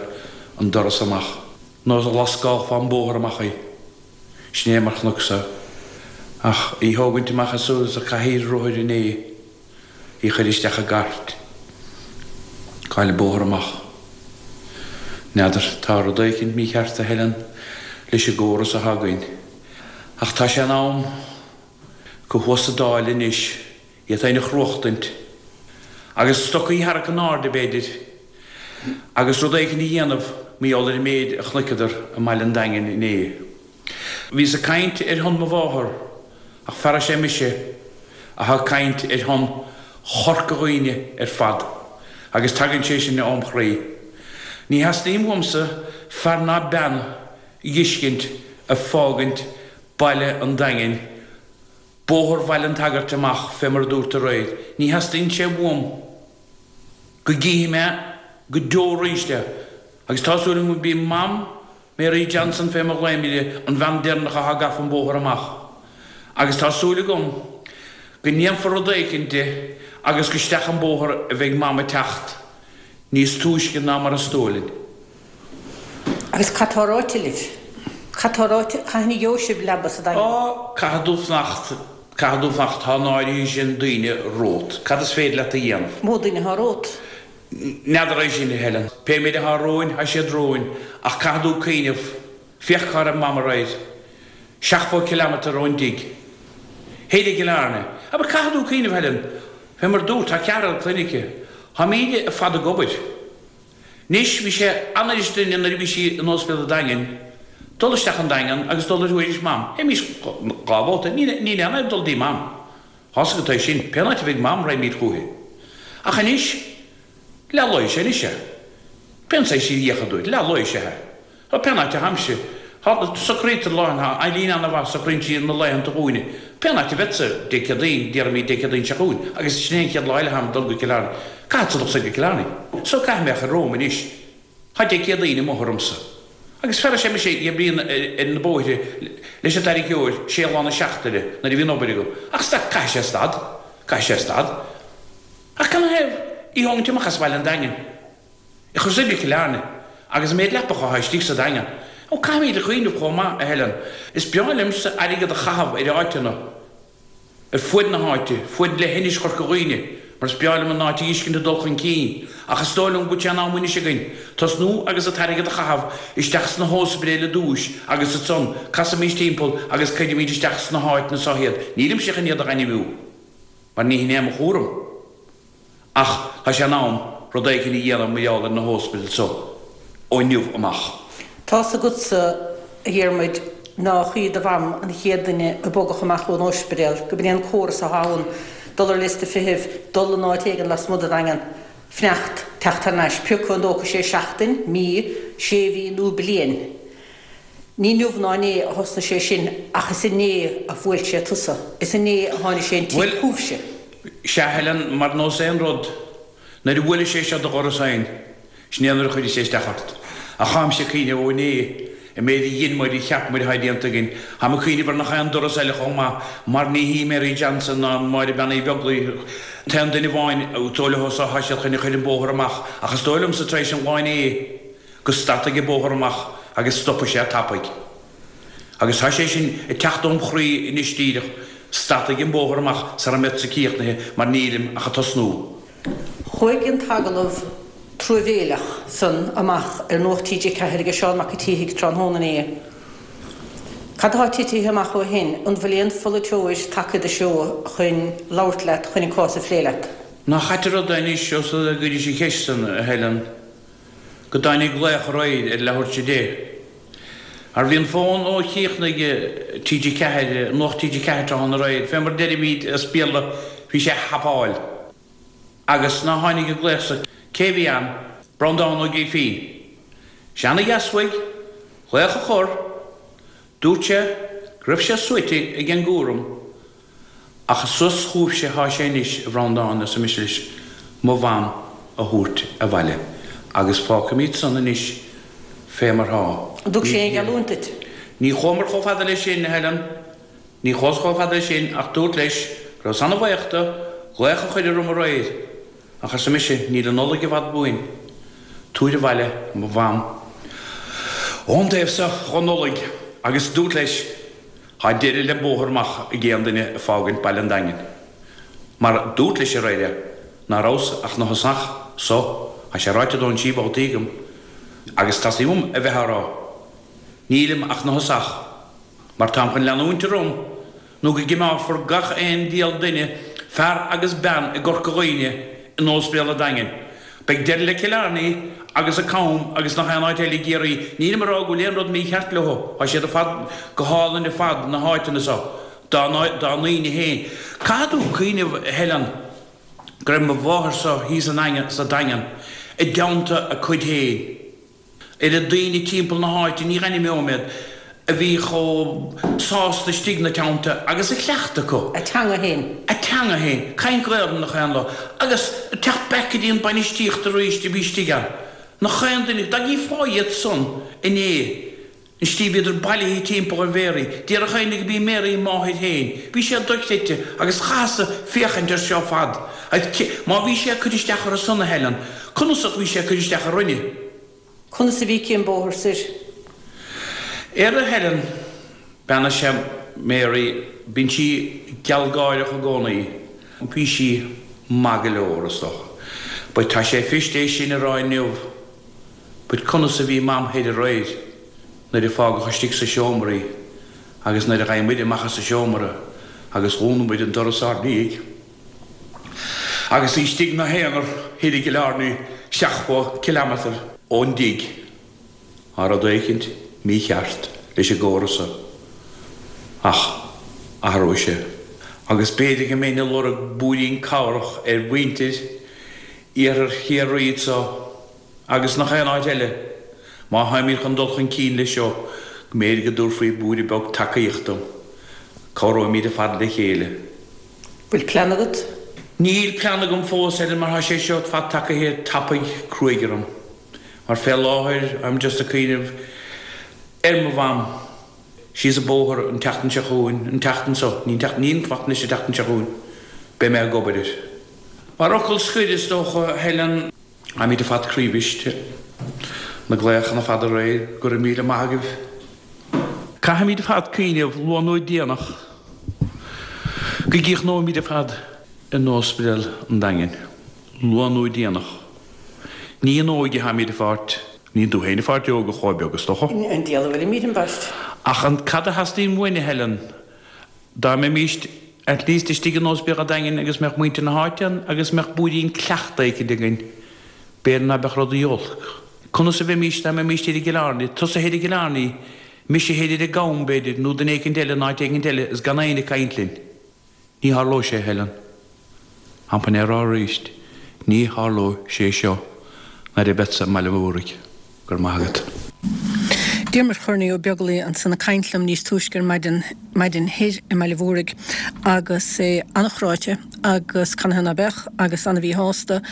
an doras amach. Nós a lascálfá an bóthar amach í. Sin é mar chonacsa. Ach í thógaint amach as a cathaoir rothair inné, í chuir isteach i gcairt. Goil an bóthar amach. N'fheadar, tá rud éicint mícheart, a Helen, leis an gcóras athá againn. Ach tá sé in am go thuas sa Dáil anois iad féin a chruachtaint, agus stocaí a tharrac in airde, b'fhéidir, agus rud éicint a dhéanamh mar gheall ar an méid a chonaiceadar i mbaile an Daingin inné. Bhíos ag caint ar shon mo mháthar, ach feara sé mise athá ag caint ar shon Chorca Dhuibhne ar fad, agus tagann sé sin óm chroí. Ní theastaíonn uaimse fear ná bean a dh'fheiscint ag fágaint baile an Daingin, Bóthar Bhaile an tSagairt amach fé mar a dúrt aréir. Ní theastaíonn sé uaim go gcífidh mé go deo arís é agus tá súil agam gurb í Mam Mary Johnson fé mar a ghlaoimid í, an bhean deireanach athá gafa an bóthar amach. Agus tá súil agam go ndéanfar rud éicint de agus go isteach an bóthar a bheidh Mam ag teacht níos túisce ná mar is dóigh linn. Agus cad tá ráite libh? Cad tá ráite? Cathain a gheobhaidh sibh leaba sa Daingean? Á, caithfidh tú fanacht, caithfidh tú fanacht, tá an áirithe sin daoine romhat. Cad is féidir leat a dhéanamh? Mó duine atá romhat? N'fheadar é sin, a Helen. Pé méid atá romhainn, tá siad romhainn. Ach caithfidh tú cuimhneamh, féach cá raibh Mam aréir. Seachtmhó kilometre ón dtigh. Thoir i gCill Airne. Abair, caithfidh tú cuimhneamh, Helen, fé mar a dúrt, tá ceathrar clainne aici. Táimíd ar fad ag obair. Anois, bhí sé an-fhuirist linne nuair a bhí sí in Ospidéal an Daingin, dul isteach an Daingean agus dul ar thuairisc Mam. Théimís dhá bhabhta. Níl aon fhadhb dul dtí Mam. Tá's agat é sin. Pén áit a bheidh Mam, raghaimíd chúithi. Ach anois, leath lae is ea anois é. Pén saghas í a fhiacha dúit, leath lae is ea é. Tá pén áit a tháimse. Tá, socraítear lá, tá Eileen ana-mhaith, socraíonn sí na laethanta dhúinne. Pén áit a bheadsa, Dé Céadaoin, déarfaimid Dé Céadaoin seo chugainn, agus sin é an chéad lá eile tháim ag dul go Cill Airne. Caithfeadsa dul soir go Cill Airne. So caithfidh mé a chur romham anois. Tá Dé Céadaoin amuigh ormsa. Agus feara sé mise ag oibriú ar na bóithre leis an tarraiceoir sé lá na seachtaine nuair a bhíonn obair agam. Ach stad, caithfidh sé stad. Caithfidh sé stad. Ach canathaobh í thógaint amach as baile an Daingin? Í chur soir go Cill Airne, agus an méid leapacha atá istigh sa Daingean. Ó, caithfimid a chuimhneamh chomh maith, a Helen. Is breá liomsa airgead a chaitheamh ar áiteanna, ar fuaid na háite, fuaid leithinis Chorca Dhuibhne, mar is breá liom an áit a fheiscint ag dul chun cinn, ach is dóigh liom go bhfuil sé in am anois againn tosnú agus an t-airgead a chaitheamh isteach sna hóspidéil i dtúis agus ansan casaimis timpeall agus cuirimid isteach sna háiteanna so iad. Nílimse chun iad a ainmniú, mar ní hin é mo chúram. Ach tá sé in am rud éicint a dhéanamh mar gheall ar na hóspidéil so ó inniu amach. Tá's agatsa, a Dhiarmuid, nách í do mham an chéad duine a bogadh amach ón óispidéal, go b'in é an córas athá ann, dul ar liosta feithimh, dul in áit éigin lasmuigh den Daingean, fanacht, teacht thar n-ais, pé acu an dtógfaidh sé seachtain, mí, sé mhí nó bliain. Ní inniu ná inné a thosnaigh sé sin ach is inné a bhuail sé tusa. Is inné a tháinig sé an tigh Bhuel, chugaibhse. sea, Helen, mar nós aon rud, nuair a bhuaileann sé seo do dhoras féin, sin é nuair a chuireann sé isteach ort. Ach táimse ag cuimhneamh ó inné, an méid a dhein muid, a cheap muid atá déanta againn, táim ag cuimhneamh ar nach aon doras eile chomh maith, mar ní hí Mary Johnson ná Máire Bean Uí Bheaglaoich an t-aon duine amháin, is dóigh leo so, tá siad chun a chur an bóthar amach, ach is dóigh liomsa tar éis an lá inné, go stadfaidh an bóthar amach agus stopfaidh sé tapaidh. Agus tá sé sin ag teacht óm chroí anois díreach, stadfaidh an bóthar amach sara mbeadsa críochnaithe mar nílim ach ag tosnú. Chuaigh an t-agallamh truamhéileach san amach ar Nuacht TG4 aige Seán Mac a' tSíthigh tráthnóna inné. Cad atá titithe amach ó shin? An bhfuil aon pholaiteoir tagtha i do threo chun labhairt leat, chun an cás a phlé leat? Nach ait an rud é anois, ós rud é go gcuiris an cheist san, a Helen. go dtáinig glaoch aréir ar leathuair tar 10. Mar bhí an fón ó chríochnaigh TG4, Nuacht TG4 tráthnóna aréir, fé mar deirimíd as Béarla, bhí sé a thapáil. Agus ná tháinig an glaoch so, cé bhí ann? Breandán Ó Grífín. Sé ana-dheas uaidh glaoch a chur, dúirt sé. Go raibh sé suaite ag an gcúram ach is suas chugaibhse thá sé anois, a Bhreandáin, arsa mise leis, mo mham a thabhairt abhaile agus fágfaimíd san anois fé mar thá. An dtug sé aon gheallúint duit? Ní chuamar chomh fada leis sin, a Helen. Ní chuas chomh fada leis sin ach dúrt leis go rabhas ana-bhaoch do, glaoch a chuir orm aréir. Ach arsa mise, níl an Nollaig i bhfad uainn. Tabhair abhaile mo mham ón dtaobh so dhon Nollaig agus dúrt leis, thá deireadh le bóthar amach ag aon duine ag fágaint baile an Daingin. Mar dúrt leis aréir é, ná rabhas ach 'na thosach so, thá sé ráite dó ansí babhtaí agam, agus teastaíonn uaim a bheith á rá. Nílim ach 'na thosach. Mar táim chun leanúint orm nó go gcimeálfar gach aon diabhal duine, fear agus bean i gCorca Dhuibhne, in Óispidéal an Daingin. Beidh deireadh le Cill Airne agus an Cam agus nach aon áit eile i gCiarraí. Nílim ag rá go bhfuil aon rud mícheart leo, tá siad ar fad go hálainn ar fad, na háiteanna so, dá ndaoine féin. Caithfidh tú cuimhneamh, a Helen, go raibh mo mháthair so thíos sa Daingean i dteannta a cuid féin. Oiread daoine timpeall na háite, ní dh'ainmneoidh mé iad, a bhí chomh sásta istigh 'na teannta agus a chleachtadh acu. A teanga féin. A teanga féin. Caint Gaolainn nach aon lá. Agus teacht back go dtí an bainistíocht arís a bhí istigh ann. Nach aon duine, dá gcífeá iad san inné, An tslí bhíodar bailithe timpeall ar Mhéaraí. Déarfadh éinne go b'í Mary a máthair féin. Bhí sé dochreidte agus chaitheas-sa féachaint air seo fad. Agus má bhí sé ag cur isteach orthu san, a Helen, conas ach bhí sé ag cur isteach orainne? Conas a bhí aici an bóthar soir? Ar a Helen, bean is ea Mary, bíonn sí gealgháireach i gcónaí. Bhí sí maith go leor, is dócha. But tá sé fuirist é sin a rá inniu. But conas a bhí Mam thoir aréir nuair a fágadh istigh sa seomra í agus nuair a ghaibh muid amach as an seomra agus dhún muid an doras ár ndiaidh agus í istigh 'na haonar thoir i gCill Airne 70 kilometre ón dtigh. Tá rud éicint mícheart leis an gcóras so. Ach athróidh sé. Agus b'fhéidir go mbeinn ag lorg blúirín cabhrach ar mhuintir Iarthar Chiarraí anso agus nach aon áit eile, má tháimid chun dul chun cinn leis seo, go mb'fhéidir go dtabharfaí blúire beag tacaíochta dom. Cabhróimid ar fad le chéile. Bhfuil plean agat? Níl plean agam fós, Helen, mar tá sé seo ar fad tagaithe tapaidh cruaidh orm. Mar fé láthair, I'm just ag cuimhneamh ar mo mham. Síos an bóthar an tseachtain seo chugainn, an tseachtain seo, ní an tseachtain, ní an tseachtain anois, an tseachtain seo chugainn, beidh mé ag obair air. Mar fhocal scoir, is dócha, Helen, táimid ar fad croíbhriste. Na glaochanna ar fad aréir, go raibh míle maith agaibh. Caithfimid ar fad cuimhneamh, luath nó déanach, go gcríochnóimid ar fad in Ospidéal an Daingin. Luath nó déanach. Ní in óige atáimid ag fáilt. Níl tú féin ag fáilt óg a chomh beag, is dócha. An diabhal a bhfuilimid, ambaist. Ach an cad a theastaíonn uainn, a Helen? Dá mbeimíst at least istigh in Ospidéal an Daingin agus mbeadh muintir na háite ann agus mbeadh blúirín cleachta éicint againn, b'fhéidir ná beadh rudaí olc. Conas a bheimíst dá mbeimíst thoir i gCill Airne, tusa thoir i gCill Airne, mise thoir ar an gCam, b'fhéidir, nó duine éicint eile in áit éicint eile is gan éinne ag caint linn. Ní tharlóidh sé, a Helen. Táim chun é a rá arís, ní tharlóidh sé seo nuair a bheadsa i mBaile Mhúraigh. Go raibh maith agat. Diarmuid Chornaí Ó Beaglaoi ansan ag caint liom níos túisce ar maidin, maidin thoir i mBaile Mhúraigh agus é an-chráite agus canathaobh ná beadh agus an-mhíshásta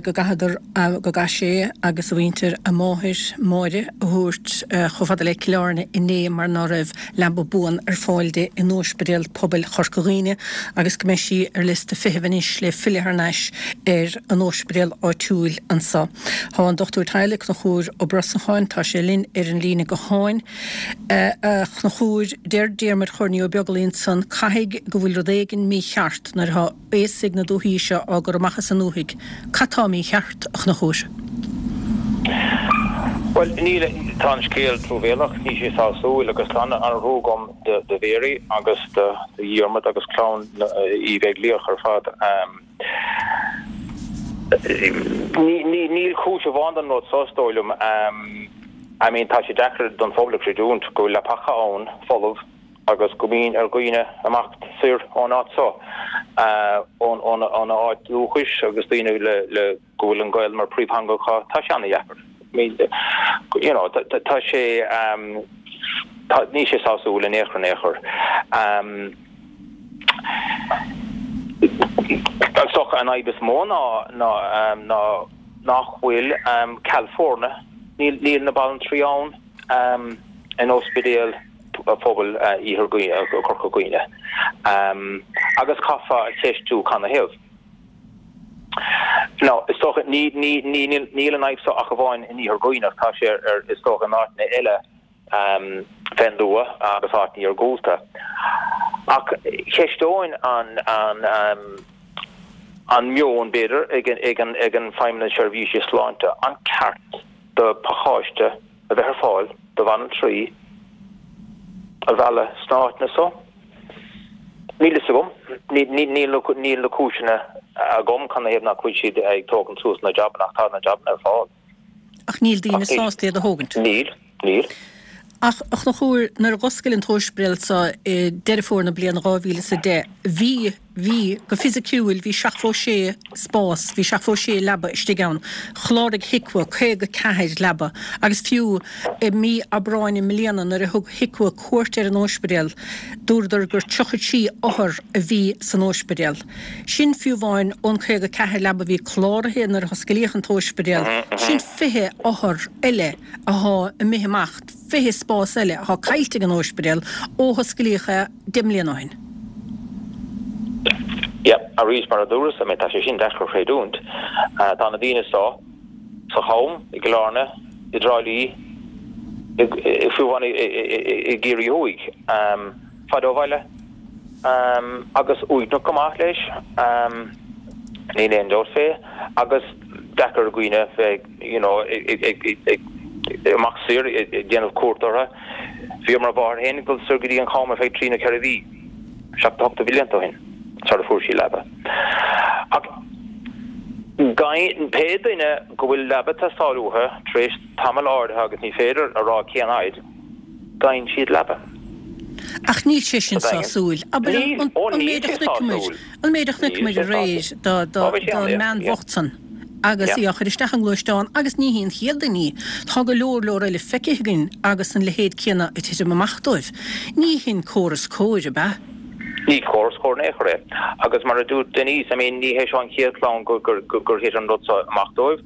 go gcaitheadar, go gcaith sé agus a mhuintir a máthair, Máire, a thabhairt chomh fada le Cill Airne inné mar ná raibh leaba buan ar fáil di in Ospidéal Pobail Chorca Dhuibhne agus go mbeidh sí ar liosta feithimh anois le filleadh thar n-ais ar an ospidéal áitiúil anso. Tá an dochtúir teaghlaigh, Conchúr Ó Brosnacháin, tá sé linn ar an líne gutháin. A Chonchúir, deir Diarmuid Chornaí Ó Beaglaoi ansan, caithfidh go bhfuil rud éigin mícheart nuair atá aosaigh na dúthaí seo á gcur amach as an ndúthaigh. Cad tá mícheart, a Chonchúir? Bhuel, níl, tá an scéal truamhéalach, níl sé sásúil agus tá an-thrua agam do Mhary agus do Dhiarmaid agus clann Uí Bheaglaoich ar fad. Níl cúis amháin don rud seo, is dóigh liom. I mean, tá sé deacair don phobal a chreidiúint go bhfuil leapacha ann, folamh, agus go mbíonn ar dhaoine imeacht soir ón áit seo, óna áit dúchais agus daoine le go bhfuil an Ghaeilge mar príomhtheanga acu, tá sé ana-dheacair. You know, tá sé. Tá, níl sé sásúil in aon chor in aon chor. Is dócha an fhadhb is mó ná ná ná nach bhfuil ceal foirne, níl níl na banaltraí ann in ospidéal phobail Iarthar Chorca Dhuibhne. Agus caithfeá a cheistiú canathaobh. Now, is dócha, ní ní ní níl an fhadhb seo ach amháin in Iarthar Dhuibhneach, tá sé ar is dócha in áiteanna eile fén dtuath agus áiteanna iargúlta. Ach cheisteoinn an an meon, b'fhéidir, ag ag an ag an Feidhmeannas Seirbhíse Sláinte, an ceart do phacáiste a bheith ar fáil do bhanaltraí a mhealladh sna háiteanna so? Níl fhios agam. Níl níl na cúiseanna agam canathaobh nach bhfuil siad ag tógaint suas na jabanna ach tá na jabanna ar fáil. Ach níl daoine sásta iad a thógaint. Níl, níl. Ach, a Chonchúir, nuair a dh'oscail an t-óispidéal so i Deireadh Fómhair na bliana 2010, bhí, bhí, go fisiciúil, bhí 76 spás, bhí 76 leaba istigh ann. Chláraigh HIQA 54 leaba agus fiú i mí Aibreáin i mbliana nuair a thug HIQA cuairt ar an óispidéal, dúradar gur 33 othar a bhí san óispidéal. Sin fiú amháin ón 54 leaba a bhí cláraithe nuair a hoscailíodh an t-óispidéal, sin 20 othar eile athá imithe amach, 20 spás eile athá caillte ag an óispidéal ó hoscailíodh é 10 mbliana ó shin. Yeah, arís mar a dúras, I mean tá sé sin deacair a chreidiúint. Tá na daoine seo sa Cham, i gCill Airne, i dTrá Lí, fiú amháin i gCiarraí Thuaidh, fada ó bhaile. Agus uaigneach go maith leis, níl aon dabht fé, agus deacair ar dhaoine bheith you know ag imeacht soir ag déanamh cuairt orthu. Bhí mo mháthair féin ag dul soir go dtí an Cham ar feadh trí nó ceithre mhí, 78 de bhlianta ó shin, sara fuair sí leaba. Ach pé duine go bhfuil leaba ag teastáil uathu tar éis tamall áirithe agus ní féidir a rá cén fhaid, Faigheann siad leaba. Ach níl sé sin sásúil. Abair an méid a chonaiceamar, an méid a chonaiceamar aréir don mbean bhocht san agus í á chur isteach i ngluaisteán agus ní hí an chéad duine í. Tá go leor leor eile feicthe againn agus an leithéid céanna ag titim amach dóibh. Ní hin córas cóir, ab ea? Ní córas cóir in aon chor é. Agus mar a dúirt Denise, I mean, ní hé seo an chéad chlann gur thit an rud seo amach dóibh.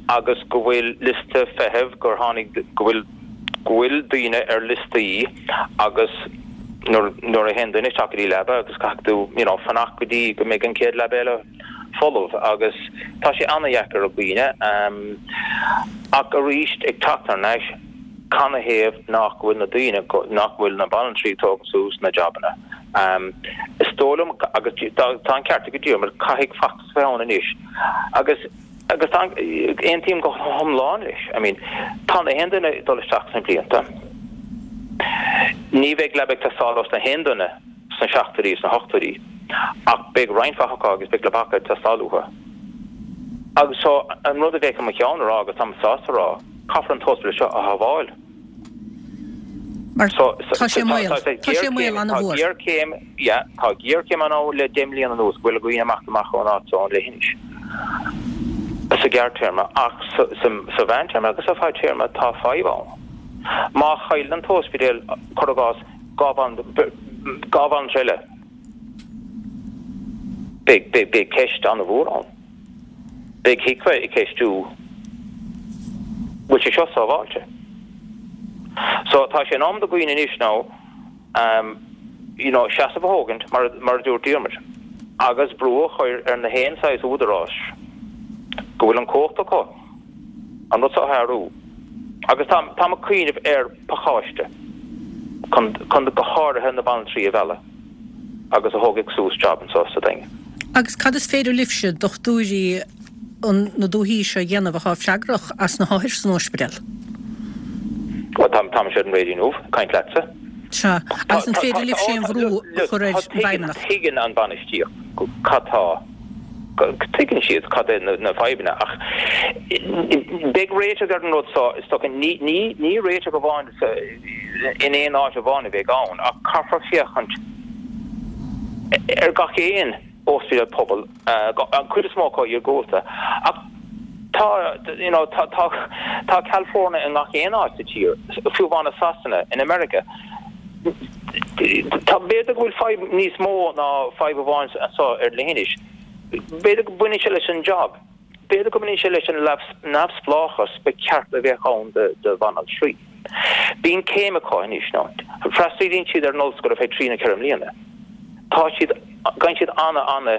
agus go bhfuil liosta feithimh, gur tháinig, go bhfuil, go bhfuil daoine ar liostaí agus nuair, nuair a théann duine isteach go dtí leaba agus caithfidh tú, you know, fanacht go dtí go mbeidh an chéad leaba eile folamh agus tá sé an-dheacair ar dhaoine. Ach arís, ag teacht thar n-ais, canathaobh nach bhfuil na daoine, nach bhfuil na banaltraí ag tógaint suas na jabanna? Is dóigh liom, agus tá an ceart ag Diarmuid, caithfidh feachtas a bheith ann anois agus, Agus tá, aontaím go hiomlán leis. I mean, tá na haon duine ag dul isteach sna blianta. Ní bheidh leaba ag teastáil ós na haon duine sna seachtóidí, sna hochtóidí, ach beidh roinnt mhaith acu agus beidh leapacha ag teastáil uathu. Agus so, an rud a bheadh i mo cheann a rá, agus táim sásta a rá, caithfear an t-ospidéal seo a shábháil. Mar tá sé i mbaol. Tá sé i mbaol an-mhór. Tá géarchéim, yeah, tá géarchéim ann le 10 mbliana anuas go bhfuil dhaoine ag imeacht amach ón áit seo, ón leithinis, sa ghearrtéarma ach sa mheántéarma agus sa bhfadtéarma tá fadhb ann. Má chailleann an t-ospidéal, cuir i gcás, 2 bhanaltra eile, beidh ceist an-mhór ann. Beidh HIQA ag ceistiú bhfuil sé seo sábháilte. So tá sé in am do dhaoine anois now you know seasamh a thógaint mar mar a dúirt Diarmuid agus brú a chur ar na haon saghas údaráis go bhfuil an cumhacht acu an rud seo a athrú. Agus tá táim ag cuimhneamh ar pacáiste chun chun go háirithe na banaltraí a mhealladh. agus a thógfaidh suas job anseo sa Daingean. Agus cad is féidir libhse, dochtúirí na dúichí seo a dhéanamh atá freagrach as na hothair san óispidéal? Bhuel, tá, táimse ar an raidió inniu, ag caint leatsa. Sea, agus an féidir libhse aon bhrú a chur ar an bhFeidhmeannacht? Tuigeann an bainistíocht cad tá, tuigeann siad cad é na fadhbanna ach beidh réiteach ar an rud seo, is dócha, ní, ní, ní réiteach amháin in aon áit amháin a bheidh ann ach caithfear féachaint ar gach aon ospidéal pobail, an chuid is mó acu iargúlta. Ach tá. you know, tá, tá, tá ceal foirne i ngach aon áit sa tír, fiú amháin i Sasana, in America. Tá, b'fhéidir go bhfuil fadhb níos mó ná fadhb amháin anseo ar leithinis. B'fhéidir go mbaineann sé leis an job. B'fhéidir go mbaineann sé leis an neamhspleáchas ba cheart a bheith ann do bhanaltraí. Bíonn céim acu anois, nó freastalaíonn siad ar an ollscoil ar feadh trí nó 4 mbliana. Tá siad, faigheann siad ana, ana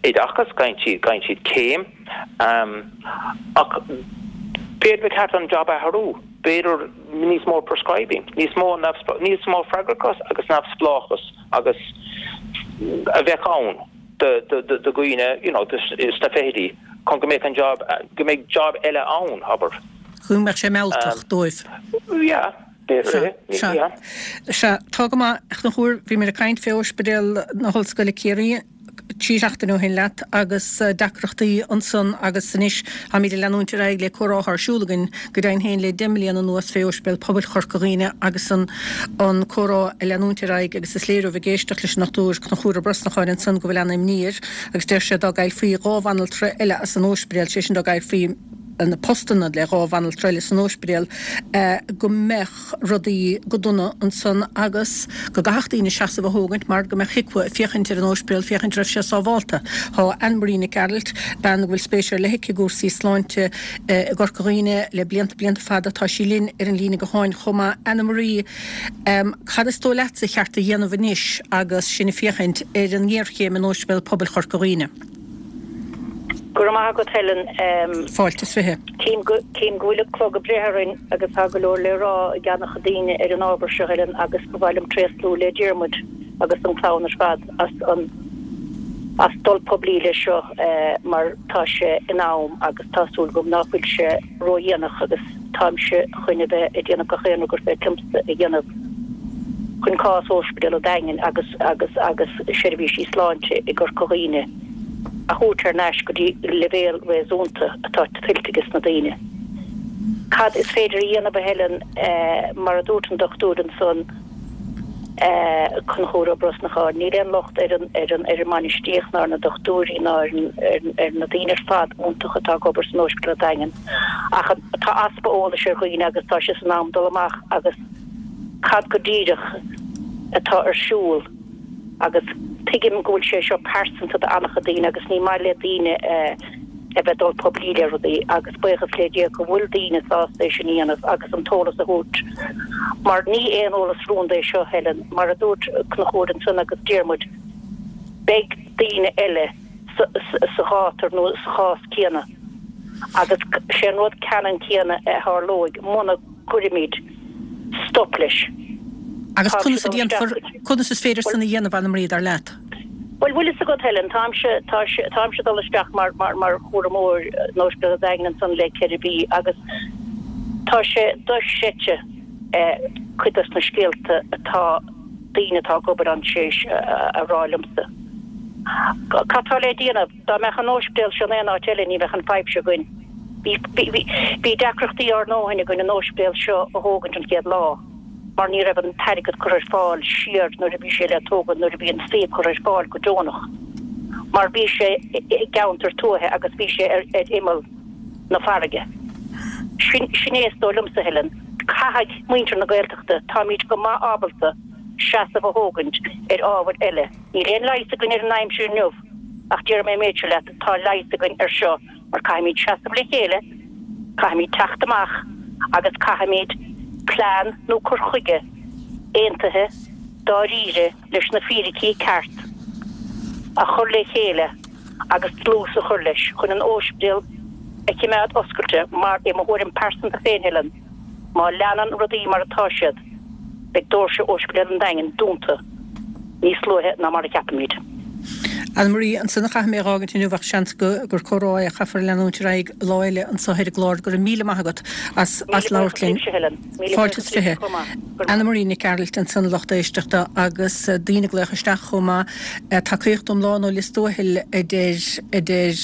oideachas, faigheann siad, faigheann siad céim, ach b'fhéidir ba cheart an job a athrú, b'fhéidir níos mó prescribing, níos mó, níos mó freagrachas agus neamhspleáchas agus a bheadh ann. do dhaoine you know sna fichidí chun go mbeadh an job, go mbeidh job eile ann, abair. Go mbeadh sé mealltach dóibh. Yeah, b'fhéidir é, yeah. Sea, tá go maith, a Chonchúir, bhí muid ag caint fé Ospidéal na hOllscoile Ciarraí 3 seachtaine ó shin leat agus deacrachtaí ansan agus anois táimid ag leanúint ar aghaidh le comhrá atá ar siúl againn go deimhin féin le 10 mbliana anuas fé Ospidéal Pobail Chorca Dhuibhne agus an an comhrá a leanúint ar aghaidh agus is léir ó bheith ag éisteacht leis an Dr Conchúr Ó Brosnacháin ansan go bhfuil ana-imní air agus deir sé dá gcaillfí 2 bhanaltra eile as an óispidéal, sé sin dá gcaillfí na postanna le 2 bhanaltra eile san óispidéal, go mbeadh rudaí go dona ansan agus go gcaithfeadh daoine seasamh a thógaint mar go mbeadh HIQA ag féachaint ar an óispidéal féachaint raibh sé sábhálta. Tá Anne Marie Nic Gearailt, bean go bhfuil spéis ar leith aici i gcúrsaí sláinte i gCorca Dhuibhne le blianta blianta fada, tá sí linn ar an líne gutháin chomh maith. Anna Marie, cad is dóigh leatsa ba cheart a dhéanamh anois agus sinn ag féachaint ar an ngéarchéim in Óispidéal Pobail Chorca Dhuibhne? Go raibh maith agat Helen. Fáilte is 20. Tchím go tchím go bhfuil an clog ag breith orainn agus tá go leor le rá ag an-chuid daoine ar an ábhar seo Helen agus ba mhaith liom tréaslú le Diarmuid agus an clann ar fad as an as dul poiblí leis seo mar tá sé in am agus tá súil agam ná fuil sé ródhéanach agus táimse chun a bheith ag déanamh gach aon rud gur féidir liomsa a dhéanamh chun cás Ospidéal an Daingin agus agus agus seirbhísí sláinte i gCorca Dhuibhne a thabhairt thar n-ais go dtí leibhéal réasúnta atá tuillte ages na daoine. Cad is féidir a dhéanamh a Helen mar a dúirt an dochtúir ansan, Conchúr Ó Brosnacháin, níl aon locht ar an ar an ar an mbainistíocht ná ar na dochtúirí ná ar an ar na daoine ar fad iontacha atá ag obair san Óispidéal Daingean ach tá easpa eolais ar dhaoine agus tá sé san am dul amach agus cad go díreach atá ar siúl agus tuigim go bhfuil sé seo pearsanta do an-chuid daoine agus ní maith le daoine a bheith dul poiblí le rudaí agus buíochas le Dia go bhfuil daoine sásta é sin a dhéanamh agus an t-eolas a thabhairt mar ní aon eolas rúnda é seo, Helen, mar a dúirt Conchúr ansan agus Diarmuid, beidh daoine eile sa ghátar nó sa chás céanna agus sé an rud ceannann céanna a tharlóidh muna gcuirimid stop leis. Agus conas a déanfar, conas is féidir san a dhéanamh, Anna Marie, dar leat? Bhuel, bhfuil fhios agat, Helen, táimse, tá sé, táimse ag dul isteach mar, mar, mar chúramóir in Ospidéal an Daingin ansan le 4 mhí agus tá sé dochreidte cuid dos na scéalta atá daoine atá ag obair ann tar éis a rá liomsa. Cad tá le déanamh? Dá mbeadh an óispidéal seo in aon áit eile ní bheadh an fadhb seo againn. Bhí, bhí, bhí deacrachtaí ár ndóthain againn an óispidéal seo a thógaint an chéad lá. mar ní raibh an t-airgead curtha ar fáil siar nuair a bhí sé le tógaint, nuair a bhí an suíomh curtha ar fáil go deonach, mar bhí sé i gceantar tuaithe agus bhí sé ar imeall na farraige. Sin, sin é is dóigh liomsa, Helen. Caithfidh muintir na Gaeltachta, táimid go maith ábalta seasamh a thógaint ar ábhair eile. Níl aon leigheas againn ar an aimsir inniu ach déarfaidh mé an méid seo leat, tá leigheas againn ar seo mar caithfimid seasamh le chéile, caithfimid teacht amach agus caithfimid plean nó cur chuige aontaithe dáiríre leis na fíricí ceart a chur le chéile agus dlús a chur leis chun an óispidéal a chimeád oscailte mar i mo thuairim pearsanta féin Helen má leanann rudaí mar atá siad beidh doirse Óispidéal an Daingin dúnta níos luaithe ná mar a cheapaimid. Anna Marie, Ansan a chaithfidh mé a dh'fhágaint inniu ach seans gur comhrá é a chaithfear a leanúint ar aghaidh lá eile anso ar an gclár. Go raibh míle maith agat as Míle labhairt buíochas linn. libhse, Helen. Míle Fáilte buíochas is libhse 20. chomh maith. Go raibh Anna maith. Marie Nic Gearailt ansan, lucht éisteachta agus daoine ag glaoch isteach chomh maith. Tacaíocht iomlán ó Lios Tuathail a deir a deir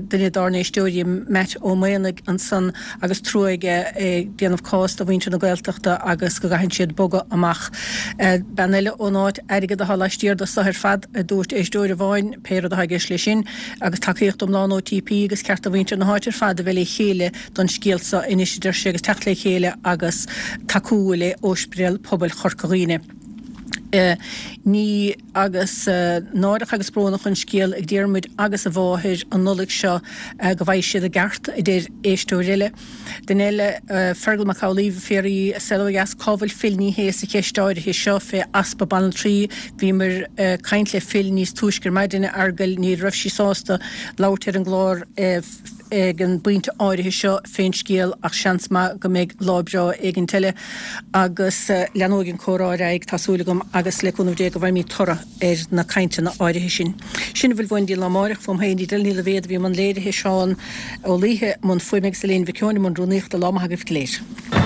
duine dár n-éisteoirí, Matt Ó Maonaigh ansan, agus trua aige ag déanamh cás do mhuintir na Gaeltachta agus go gcaitheann siad bogadh amach. Bean eile ón áit, airgead atá laistiar de so ar fad, a dúirt éisteoir amháin. Helen, pé rud atá i gceist leis sin, agus tacaíocht iomlán OTP agus ceart do mhuintir na háite ar fad a bheith le chéile don scéal seo anois, a deir sé, agus teacht le chéile agus tacú le Ospidéal Pobail Chorca Dhuibhne. Ní agus náireach agus brónach an scéal ag Diarmuid agus a mháthair an Nollaig seo go bhfaighidh siad a gceart, a deir éisteoir eile. Duine eile, Fergal Mac Amhlaoibh, ag fiafraí, Saol Ó Dheas, cá bhfuil Phil Ní Sheaghdha sa cheist áirithe seo fé easpa banaltraí? Bhíomar ag caint le Phil níos túisce ar maidin, a Fheargail, ní raibh sí sásta labhairt ar an gclár ag an bpointe áirithe seo fén scéal ach seans maith go mbeidh lá breá éigint eile agus leanóidh an comhrá ar aghaidh, tá súil agam, agus le cúnamh Dé go bhfaighimid toradh ar na cainteanna áirithe sin. Sin a bhfuil uainn go dtí an lá amáireach, fúm féin Edel Ní Loibhéad a bhí i mbun léirithe, Seán Ó Laoithe i mbun fuaime agus Elaine Mhic Eoin i mbun rúnaíochta. Lá maith agaibh go léir.